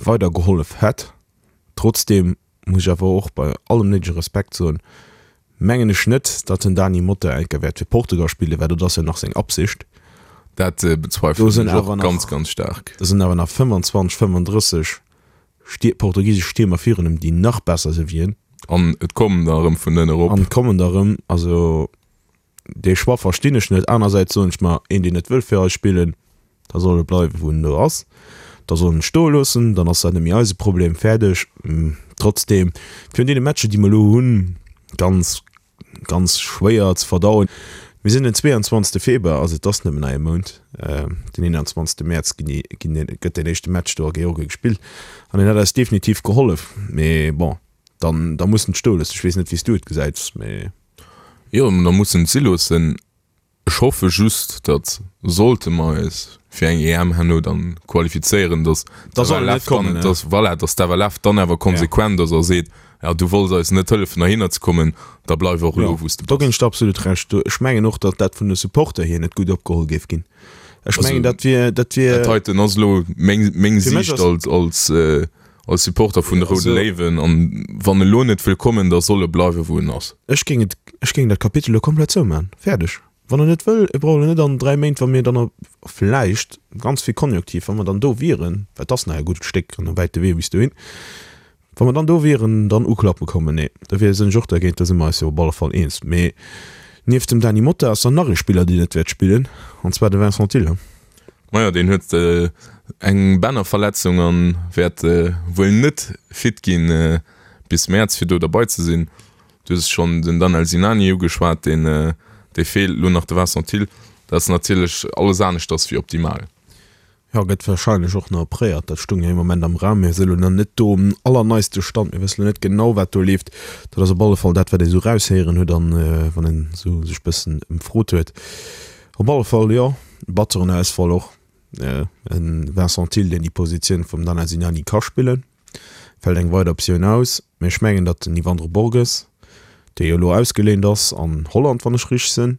weider gehollef hätt. Trotzdeem muss ech awer och bei allem néidege Respekt soen, mengen ech net, datt den Dany Motta eng Kéier wäert fir Portugal spillen, well dat ass jo nach seng Absicht. Dat bezweifelen ech och ganz, ganz staark. Do sinn awer nach 25, 35 Stier, portugisesch Stiermer virun em, déi nach besser si wéi en. An et kommen der erëm vun ënne erop. An et kommen der erëm. Also dee Choix verstinn ech net. Anersäits soen ech mer, een deen net wëll fir eis spillen, da soll e bleiwen wou en elo ass. Da soll en stoe loossen, dann ass dat net méi eise Problem. Fäerdeg. Trotzdeem, virun deene Matcher déi mer elo hunn, ganz ganz schwéier ze verdauen. Mir sinn den 22 Februar, also et ass nëmmen nach ee Mount. Den 21 Mäerz ginn déi, ginn deen, gëtt deen éischte Match do a Georgien gespillt an deen hätt eis definitiv gehollef. Mee bon, dann, da muss en et stoe loossen. Ech weess net, wéi s du et gesäits, mee. Jo, da muss en et si loossen. Ech hoffe just, datt sollte mer eis fir eng EM herno dann qualifizéieren, datt d'FLF dann, datt, voilà, datt d'FLF dann awer konsequent ass a seet, ja du wolls eis net hëllefen heihinner ze kommen, da bleif och elo wou s de bass. Do ginn ech der absolut Recht. Ech mengen och, datt dat vun de Supporter hier net gutt opgeholl géif ginn. Ech mengen, dat wier, dat wier. Dat heiten ass elo meng, meng Siicht als, als, als Supporter vun de Roude Léiwen. An wann e lo net wëll kommen, da soll e bleiwen, wou en ass. Ech géing et, ech géing dat Kapitel elo komplett zouman. Fäerdeg. Wann en net wëll, e brauch elo net an 3 Méint, wa mir dann op, vläicht, ganz vill Konjunktiv, wa mer dann do wieren, well et ass nach e gutt Stéck an e wäite Wee bis dohin, wa mer dann do wieren, dann uklappe kommen. Nee, da wier, sinn ech och dergéint. Da si mer eis jo op alle Fall eens. Mee nieft dem Dany Motta ass dann nach ee Spiller, deen net wäert spillen, an zwar de Vincent Thill. Majo, deen huet eng Bännerverletzung an wäert wuel net fit ginn bis Mäerz fir do derbei ze sinn. Du hues schonn den Danel Sinani ugeschwat, deen dee feelt, elo nach de Vincent Thill. Dat ass natierlech alles aneschters wéi optimal. Jo, gëtt warscheinlech och nach opréiert. Dat stung jo ee Moment am Raum. Mir si lo nach net do um allerneiste Stand. Mir wësse lo net genau, wat do leeft. Dat ass op alle Fall dat, wat ee sou raushéieren huet an wann een sou sech bëssen ëmfrot huet. Op alle Fall, jo, batteren Ausfall och. E Vincent Thill, deen déi Positioun vum Danel Sinani ka spillen, fält eng weider Optioun aus. Mee ech mengen, datt den Yvandro Borges, dee jo elo ausgeléint ass an Holland, wann ech richteg sinn,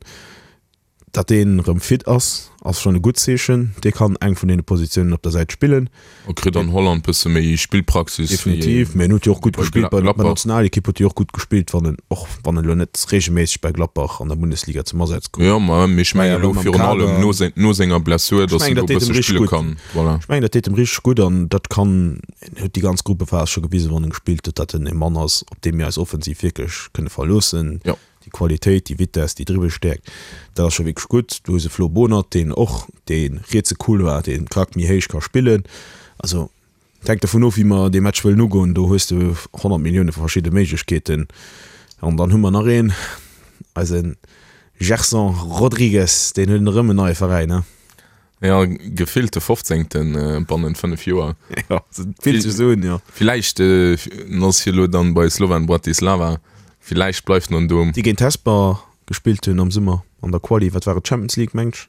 datt deen erëm fit ass, ass schonn e gutt Zeechen. Dee kann eng vun deene Positiounen op der Säit spillen. E kritt an Holland bësse méi Spillpraxis wéi Definitiv, mee en huet jo och gutt gespillt bei der Nationalekipp huet e jo och gutt gespillt, wann en, och wann en elo net reegelméisseg bei Gladbach an der Bundesliga zum Asaz koum. Jo, ma mee ech mengen elo virun allem no seng, no senger Blessur, datt en do e bësse spille kann. Voilà. Ech mengen dat deet em richteg gutt an dat kann, en huet déi ganz Gruppephas scho gewisen, wann en gespillt huet, datt en e Mann ass, op dee mir eis offensiv wierklech kënne verloossen. Jo. Déi Qualitéit, déi Vitess, déi Dribbelstäerkt, dat ass scho wierklech gutt. Du hues e Flo Bohnert, deen och dee rietse Couloir, dee Krack méi héich ka spillen. Also, et hänkt dovun of, wéi mer dee Match wëllen ugoen. Do hues de 100 Millioune verschidde Méiglechkeeten. An dann hu mer nach een, eise Gerson Rodrigues, deen huet erëm en neie Veräin, ne? Jo, gefillt de fofzéngten bannent 5 Joer. Jo, fillt sech esou un, jo. Villäicht ass hie lo dann bei Slovan Bratislava, villäicht bleift en do. Déi géint Hesper gespillt hunn am Summer an der Quali, wat war et, Champions League mengt ech.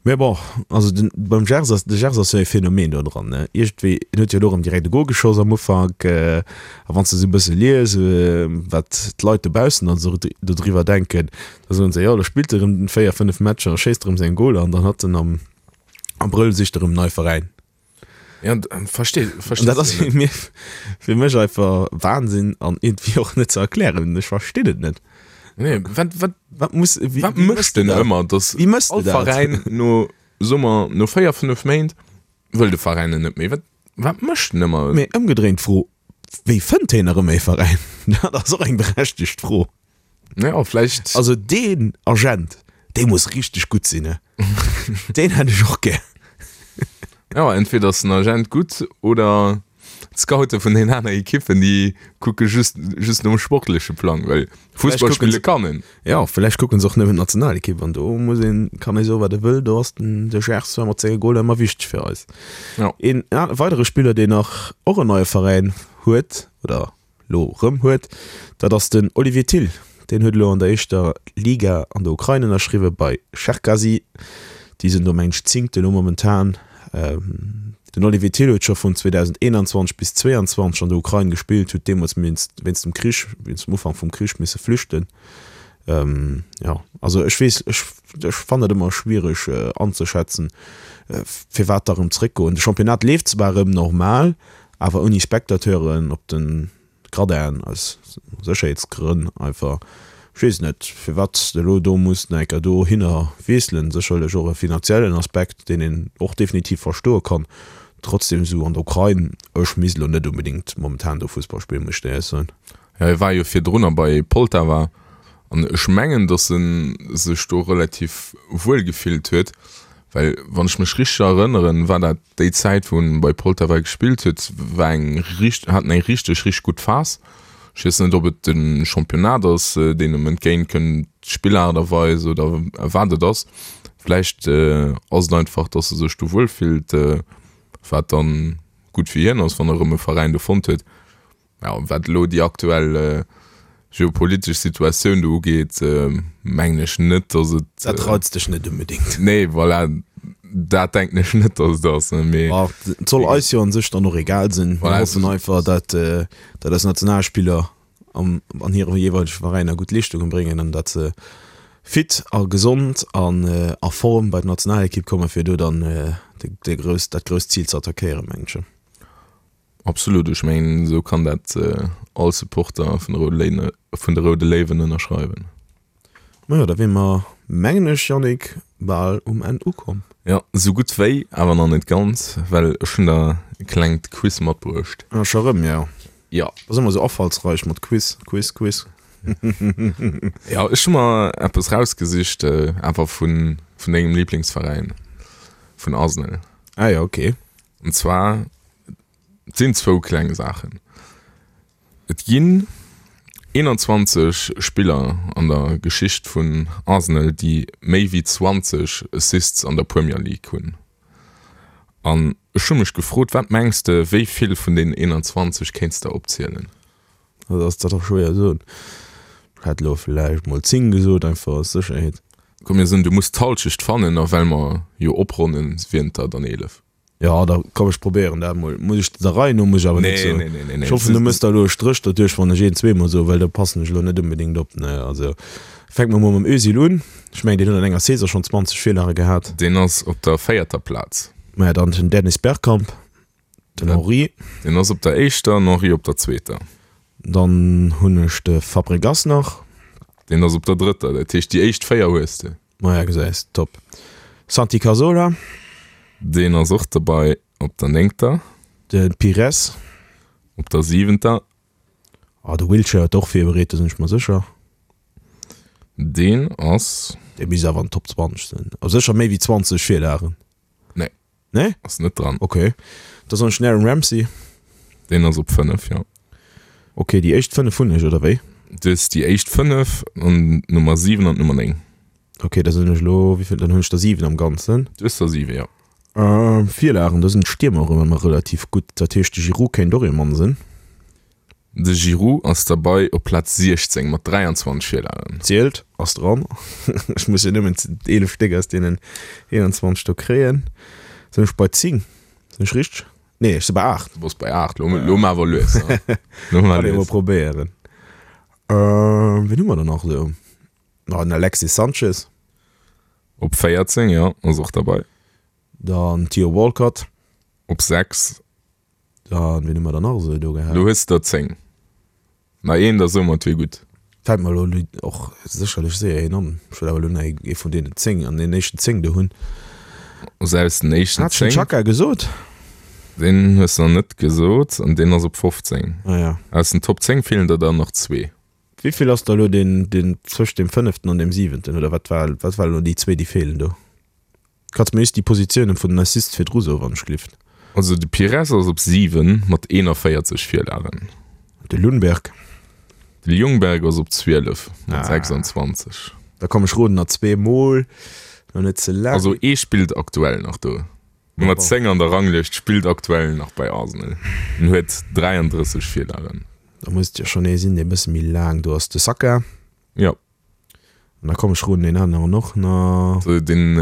Mä bon, also den, beim Gers ass, de Gers ass jo e Phänomen do dran, ne. Iergendwéi, en huet jo elo erëm direkt e Gol geschoss am Ufank, a wann s de esou e bësse lies, wat d'Leit dobaussen dann esou dodriwwer denken, Da soen se, jo, lo spillt e rëm 4, 5 Matcher a schéisst erëm seng Goler an dann hat en am Abrëll sicht e rëm en neie Veräin. Ja, versteet, versteet. Dat ass fir mir, fir mech einfach Wahnsinn an iergendwéi och net ze erklären. Ech verstinn et net. Nee, wat, wat, wat muss, wéi, wat mécht den ëmmer, dass wéi méchs de dat? All Veräin no, soe mer, no 4, 5 Méint wëll de Veräin en net méi. Wat, wat mécht en ëmmer? Mee ëmgedréint d'Fro, wéi fënnt heen erëm ee Veräin? Dat ass och eng berechtegt Fro. Ja, vläicht. Also deen Agent, dee muss richteg gutt sinn, ne? Deen hätt ech och gär. Ja, entweder ass den Agent gutt oder d'Scoute vun den aner Ekippen, déi kucke just, just nom sportleche Plang, well Fussball spille kann en. Ja, vläicht kucken se och nëmmen d'Nationalekipp an do muss een, kann ee soen, wat e wëll, do ass den de Gers zwar mat senge Goler ëmmer wichteg fir eis. Ja. Een weidere Spiller, deen nach och en neie Veräin huet oder lo rëm huet, dat ass den Olivier Thill. Deen huet elo an der éischter Liga an der Ukrain ënnerschriwwe bei Cherkasy. Déi sinn do mengen ech Zéngte lo momentan. Den Olivier Thill huet scho vun 2021 bis 22 an der Ukrain gespillt, huet deemools wéinst dem Krich, wéinst dem Ufank vum Krich misse flüchten. Jo, also ech weess, ech ech fannen et ëmmer schwiereg anzeschätzen, firwat da rëm zréckgoen. De Championnat leeft zwar rëm normal, Awer ouni Spectateuren op den Gradinen, aus Sécherheetsgrënn einfach. Ech weess net, firwat s de elo do muss nach eng Kéier dohinner wiesselen. Sécherlech och e finanziellen Aspekt, deen een och definitiv verstoe kann. Trotzdem, esou an der Ukrain, ech misst elo net onbedéngt momentan do Fussball spillen, muss ech dir éierlech soen. Jo, hie war jo virdrunner bei Poltava an ech mengen, datt e sech do relativ wuel gefillt huet, well wann ech mech richteg erënneren, war dat déi Zäit wou en bei Poltava gespillt huet, war eng richt hat en eng richteg richteg gutt Phas. Ech weess net, ob et de Championnat ass, deen em entgéint kënnt, d'Spillaart a Weis oder wat et ass. Vläicht ass et einfach, datt e sech do wuel fillt, wat dann gutt fir hien ass, wann e rëm e Veräin do fonnt huet. Jo, wat elo déi aktuell geopolitesch Situatioun do ugeet, mengen ech net, datt et. Dat reizt dech net unbedéngt. Nee, voilà, dat denken ech net, datt et ass, mee. Bon, et soll eis jo an sech dann och egal sinn. Mir hoffen einfach, datt, datt eis Nationalspiller am, an hire jeeweilege Veräiner gutt Leeschtungen bréngen an datt se fit a gesond an a Form bei d'Nationalekipp kommen, fir do dann de grouss, dat grousst Zil ze attackéieren, mengen ech. Absolut, ech mengen esou kann dat all Supporter vun de Roude Léine, vun de Roude Léiwen ënnerschreiwen. Majo, da wier mer, mengen ech, Yannick, bal um Enn ukomm. Jo, esou gutt wéi, awer nach net ganz, well ech hunn der e klengt Quiz matbruecht. Ah, scho rëm, jo. Jo. Ass ëmmer esou afallsreich mat Quiz, Quiz, Quiz. Jo, ech hu mer eppes rausgesicht, awer vun, vun dengem Liblingsveräin, vun Arsenal. Ah jo, okay. An zwar, et sinn zwou kleng Saachen. Et ginn 21 Spiller an der Geschicht vun Arsenal, déi méi wéi 20 Assists an der Premier League hunn. An ech hu mech gefrot, wat mengs de, wéi vill vun deenen 21 kéints de opzielen? Dat ass dat och schwéier soen. Ech hätt elo vläicht mol 10 gesot, einfach aus Sécherheet. Komm mir soen, du muss d'Halschecht fannen, a well mer jo opronnen, wieren et der dann 11. Jo, da komm ech probéieren dat mol. Muss ech der Rei no, muss ech awer net soen. Nee, nee, nee, nee. Ech hoffen du mëss der elo e Stréch derduerch, wann ech een zweemol soen, well da passen ech elo net onbedéngt op, ne. Also fänke mer mol mam Özil un. Ech mengen deen huet an enger Saison schonn 20 Virlage gehat. Deen ass op der véierter Plaz. Maja, dann den Dennis Bergkamp. Den Henri. Deen ass op der éischter, den Henri op der zweeter. Dann hunn ech de Fabregas nach. Deen ass op der drëtter, dat heescht déi éischt 4 hues de. Maja, gesäis, top. Santi Cazorla. Deen ass och derbei op der néngter. De Pires. Op der siwenter. Ah, de Wilshere huet och virbereet, do sinn ech mer sécher. Deen ass. Dee misst awer an den Top 20 sinn. A sécher méi wéi 20 Virlagen. Nee. Nee? Ass net dran. Ok. Da soen ech den Aaron Ramsey. Deen ass op 5, jo. Ok, déi éischt 5 hunn ech, oder wéi? Du hues déi éischt 5 an d'Nummer 7 an d'Nummer 9. Ok, da sinn ech elo, wéivill, dann hunn ech der 7 am Ganzen. Du hues der 7, jo. Virlagen, do sinn d'Stiermer och ëmmer relativ gutt. Dat heescht, de Giroud kéint och ee Mann sinn. De Giroud ass derbei op Plaz 16 mat 23 Virlagen. Zielt, ass dran. Ech muss jo nëmmen 11 Stéck aus deenen 21 do kréien. Sinn ech bei 10? Sinn ech richteg? Nee, ech si bei 8. Du bass bei 8. Lo, lo mar awer lues. Lo mar lues. Kann ee mol probéieren. Wien hu mer dann nach esou? Ah, den Alexis Sanchez. Op 14, jo, ass och derbei. Dann Theo Walcott. Op 6. Dann, wien hu mer dann nach esou do gehat? Lo hues de der 10. Na een, da soe mer et wier gutt. Fält mer elo och sécherlech séier een an. Ech wëll awer elo nach ee vun deenen 10 an den éischten 10 do hunn. Also aus den éischten 10. Hat ech den Xhaka gesot? Deen hues de nach net gesot an deen ass op 15. Ah ja. Aus den Top 10 feelen der der nach zwee. Wéivill ass da elo deen, deen zwëscht deem fënneften an deem siwenten, oder wat war, wat war elo déi zwee, déi feelen do? Kanns mer just déi Positiounen vun den Assists virdru soen, wann ech glift? Also de Pires ass op 7 mat 41 Virlagen. De Lundberg? De Ljungberg ass op 12 mat 26. Da komm ech roden nach zweemol, lo net ze laang. Also ee spillt aktuell nach do. Nummer 10 an der Ranglëscht spillt aktuell nach bei Arsenal en huet 33 Virlagen. Da muss et jo schonn ee sinn, dee bësse méi laang do ass. De Saka? Jo. An da komm ech roden deen aneren och nach. Den.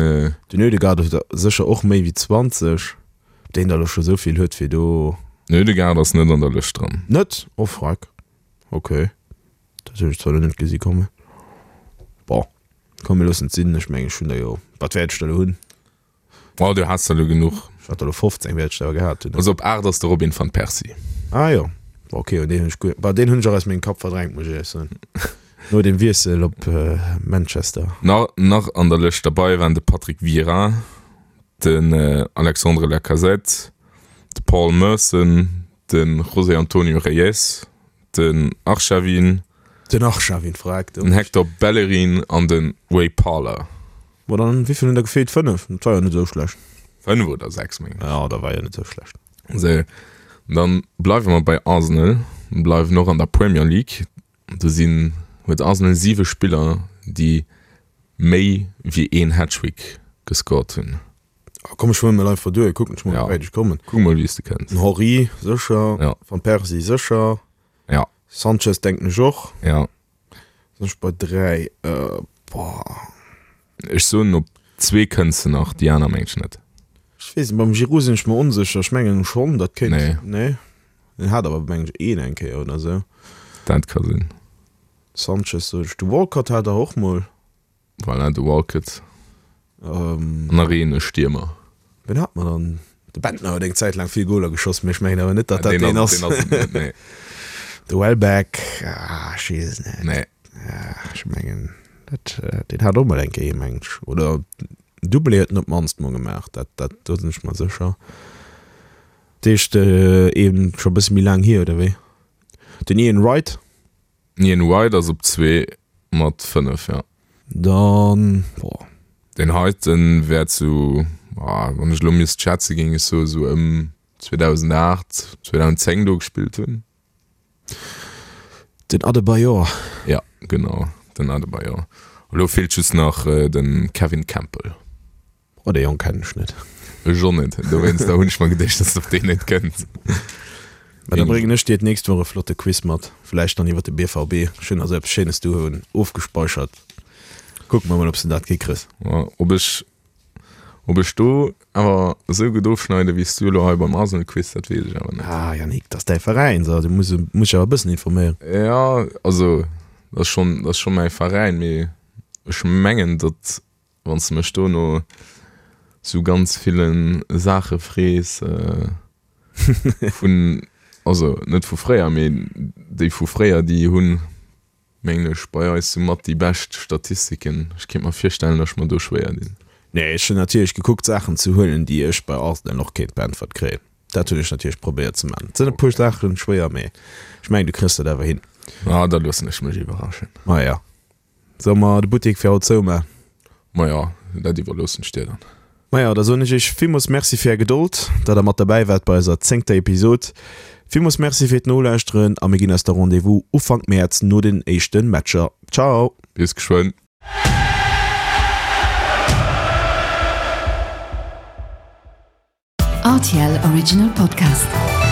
Den Ødegaard huet sécher och méi wéi 20. Ob deen der elo scho sou vill huet fir do. Den Ødegaard ass net an der Lëscht dran. Net? Oh freck. Ok. Dat hunn ech zwar elo net gesi kommen. Bon, komm mir loossen et sinn. Ech mengen ech hunn der jo, wat wäert ech der elo hunn? Oh, du has der elo genuch. Ech hat der elo 15 wäert ech der gehat hunn. Also op 8 ass de Robin van Persie. Ah jo, ok, un deen hunn ech guer, bah deen hunn ech och aus mengem Kapp verdrängt, muss ech éierlech soen, no dem Wiessel op Manchester. Nach nach an der Lëscht derbei waren de Patrick Vieira, den Alexandre Lacazette, de Paul Merson, de José Antonio Reyes, Den Arshavin. Den Arshavin, verreckt. Den Hector Bellerin an de Ray Parlour. Bon, dann, wéi vill hunn der gefeelt? 5? Dat war jo net esou schlecht. 5 oder 6, mengen ech. Jo, dat war jo net esou schlecht. Sou, dann bleiwe mer bei Arsenal, bleiwen och an der Premier League. Do sinn, huet Arsenal 7 Spiller, déi méi wéi een Hattrick gescored hunn. Komm ech huelen mol einfach duer, kucken ech mol wéi wäit ech kommen. Kuck mol wéi s de kënns. Den Henry sécher, Ja. Van Persie sécher, Ja. Sanchez denken ech och. Ja. Sinn ech bei 3, boah. Ech soen op zwee kënns de nach, déi aner mengen ech net. Ech weess net, beim Giroud sinn ech mer onsécher, ech mengen schonn dat kéint, Nee. nee? En hat awer mengen ech een eng Kéier oder sou. Dat ka sinn. Sanchez sot ech, de Walcott hat der och mol. Voilà, de Walcott. An nach een, e Stiermer. Wien hat mer dann? De Bentner huet eng Zäit laang vill Goler geschoss, mee ech mengen awer net, datt dat deen ass. Deen ass et net, nee. De Welbeck, ah, ech weess et net. Nee. Ech mengen, dat, deen hat och mol eng Kéier, mengen ech. Oder Doublé huet en op d'mannst mol gemaach, dat, dat, do sinn ech mer sécher. Dat heescht, een scho e bësse méi laang hier, oder wéi? Den Ian Wright? Ian White ass op 2 mat 5, jo. Dann, boah. Deen heiten wär zu, wann ech elo misst schätzen, géing ech soe sou ëm 2008, 2010 do gespillt hunn. Den Adebayor. Ja, genau, den Adebayor. Elo feelt just nach de Kevin Campbell. Oh, dee Jong kennen ech net. Ech och net, dowéinster hunn ech mer geduecht, dass de op deen net kënns. Mä da bréngen ech dir d'nächst Woch e flotte Quiz mat, vläicht dann iwwer de BVB. Ech hunn also eppes Schéines doheem ofgespeichert. Kucke mer mol, ob s de dat hikriss. Ob ech, ob ech do awer esou gutt ofschneide wéi s du elo hei beim Arsenal-Quiz, dat weess ech awer net. Ah, Yannick, dat ass däi Veräin, so, du muss, muss dech awer e bëssen informéieren. Jo, also, dat ass schonn, dat ass scho mäi Veräin, mee ech mengen, datt Wann s de mech do no sou ganz ville Saache frees vun, also net vu fréier, mee déi vu fréier, déi hunn, mengen ech, bei eis sou mat déi bescht Statistiken. Ech kéint mer virstellen, datt ech mer do schwéier dinn. Nee, ech hunn natierlech gekuckt Saachen ze huelen, déi ech bei Arsenal och kéint beäntwert kréien. Dat hunn ech natierlech probéiert ze maachen. Et sinn e puer Saachen schwéier, mee ech mengen, du kriss dat awer hin. Ah, da loossen ech mech iwwerraschen. Maja. Solle mer de Buttek fir haut zouman? Maja, dat iwwerloossen ech dir dann. Maja, da soen ech iech villmools Merci fir är Gedold, dat der mat derbäi waart bei eiser zéngter Episod. Villmools Merci fir d'Nolauschteren a mir ginn eis da Rendez-vous Ufank Mäerz no den éischte Matcher. Ciao! Bis geschwënn! RTL Original Podcast.